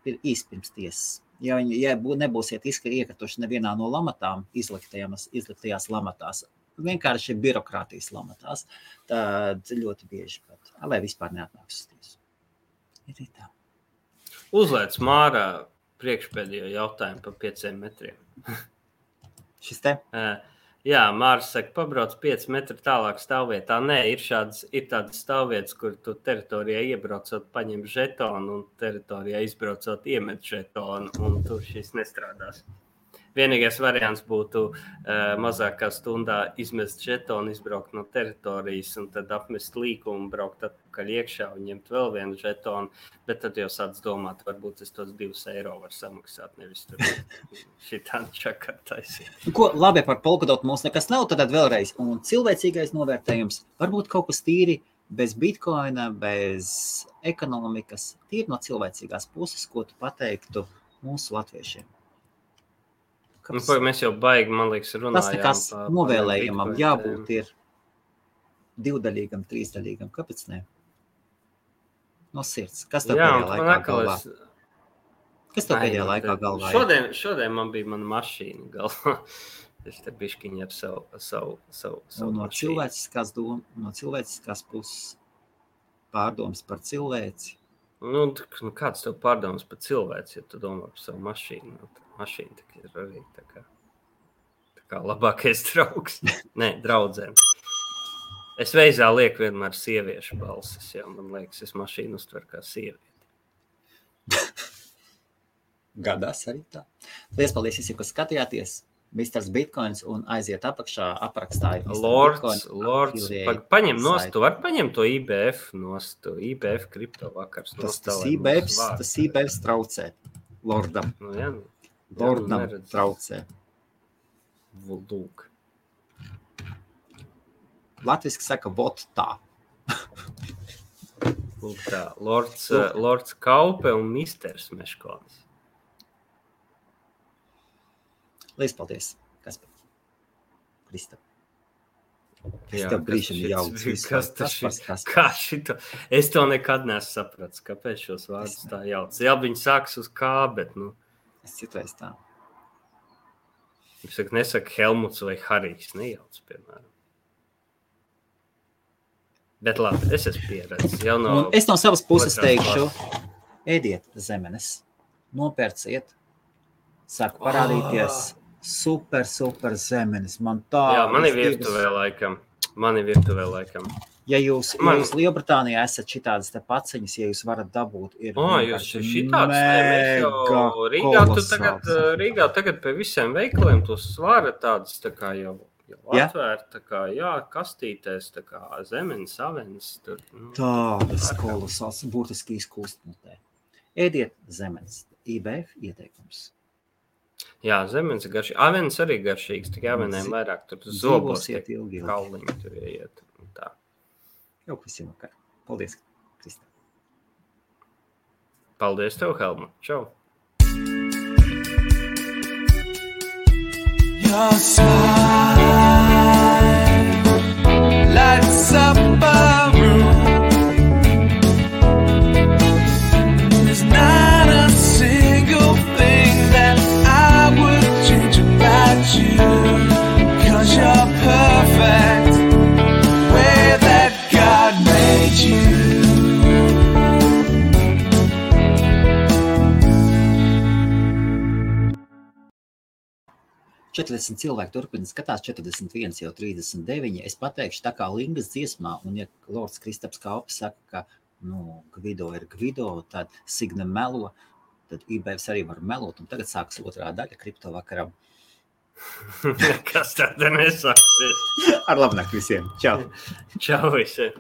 tiesas. Ja nebūsiet iekrituši nevienā no lamatām, izliktajās lamatās, vienkārši birokrātijas lamatās, tad ļoti bieži pat, lai vispār neatnāks uz tiesu. Ir tā. Uzlēc Mārā priekšpēdējo jautājumu par 5 metriem. Šis te? Jā, Māris saka, pabrauc 5 metru tālāk stāvvietā. Nē, ir tādas stāvvietas, kur tu teritorijā iebraucot, paņem žetonu un teritorijā izbraucot iemet žetonu, un tur šis nestrādās. Vienīgais variants būtu mazākā stundā izmest žetonu, izbraukt no teritorijas un tad apmest līkumu, braukt atpakaļ iekšā un ņemt vēl vienu žetonu, bet tad jau sāc domāt, varbūt es tos 2 eiro var samaksāt, nevis tur šitāni čakartaisīt. Labi, par Polkadot mums nekas nav, tad vēlreiz. Un cilvēcīgais novērtējums, varbūt kaut kas tīri bez bitcoina, bez ekonomikas, tīri no cilvēcīgās puses, ko tu pateiktu mūsu latviešiem. Mēs jau baigi, man liekas, runājām. Tas nekas novēlējumam jābūt ir 2-daļīgam, 3-daļīgam. Kāpēc ne? No sirds. Kas tev pēdējā laikā galvā? Kas tev pēdējā laikā galvā? Šodien man bija mana mašīna galvā. Es te bišķiņi ar savu no cilvēciskās puses pārdomas par cilvēci. Nu, kāds tev pārdomas par cilvēci, ja tu domā par savu mašīnu? Mašīna ir arī tā kā labākais draugs. Nē, draudzēm. Es veizā lieku vienmēr sieviešu balsis, jo man liekas, es mašīnu uztveru kā sievieti. Gadās arī tā. Paldies visiem, kas skatījāties. Misters Bitcoins un aiziet apakšā aprakstā. Lords, paņem nost, tu vari paņemt to IBF nost, IBF kripto vakars. Tas IBF traucē Lordam. Nu, jā, Lordam traucē. Lūk. Latviski saka, vot tā. Lūk tā, Lords Kaupe un Misters Meškonis. Lies paldies, Kaspar. Krista. Tev brīšam jauc. Kā šito? Es to nekad nesu saprats, kāpēc šos vārdus tā jauc. Jā, viņi sāks uz kā, bet, Es citreiz tā. Es nesaku Helmuts vai Harijs, nejauc, piemēram. Bet labi, es esmu pieredzis. Es no savas puses teikšu, ēdiet zemenes, nopērciet, sāk parādīties super zemenes. Jā, mani virtuvē laikam. Ja jūs Lielbritānijā esat šitādas te paciņas, ja jūs varat dabūt, ir Rīgā tagad pie visiem veikaliem tos svara tādas tā kā jau atvērt, tā kā, kastītēs, tā kā zemenes, avenes. Tādas kolosāls, būtiski izkūstmutē. Ēdiet zemenes. IBF ieteikums. Jā, zemenes ir garšīgs. Avenes arī garšīgs, tikai avenēm vairāk tur zobos tiek kauliņi tur ieiet. Tā. Jau visiem vakar. Paldies, Krista. Paldies tev, Helmut. Čau. Your smile lights up a room. There's not a 40 cilvēki turpina skatās, 41 jau 39. Es pateikšu tā kā Lingas dziesmā, un ja Lords Kristaps Kalpis saka, ka Gvido ir Gvido, tad Signe melo, tad IBFs arī var melot, un tagad sāks otrā daļa kripto vakaram. Kas tāda nesāksies? Ar labnakt visiem. Čau. Čau visiem.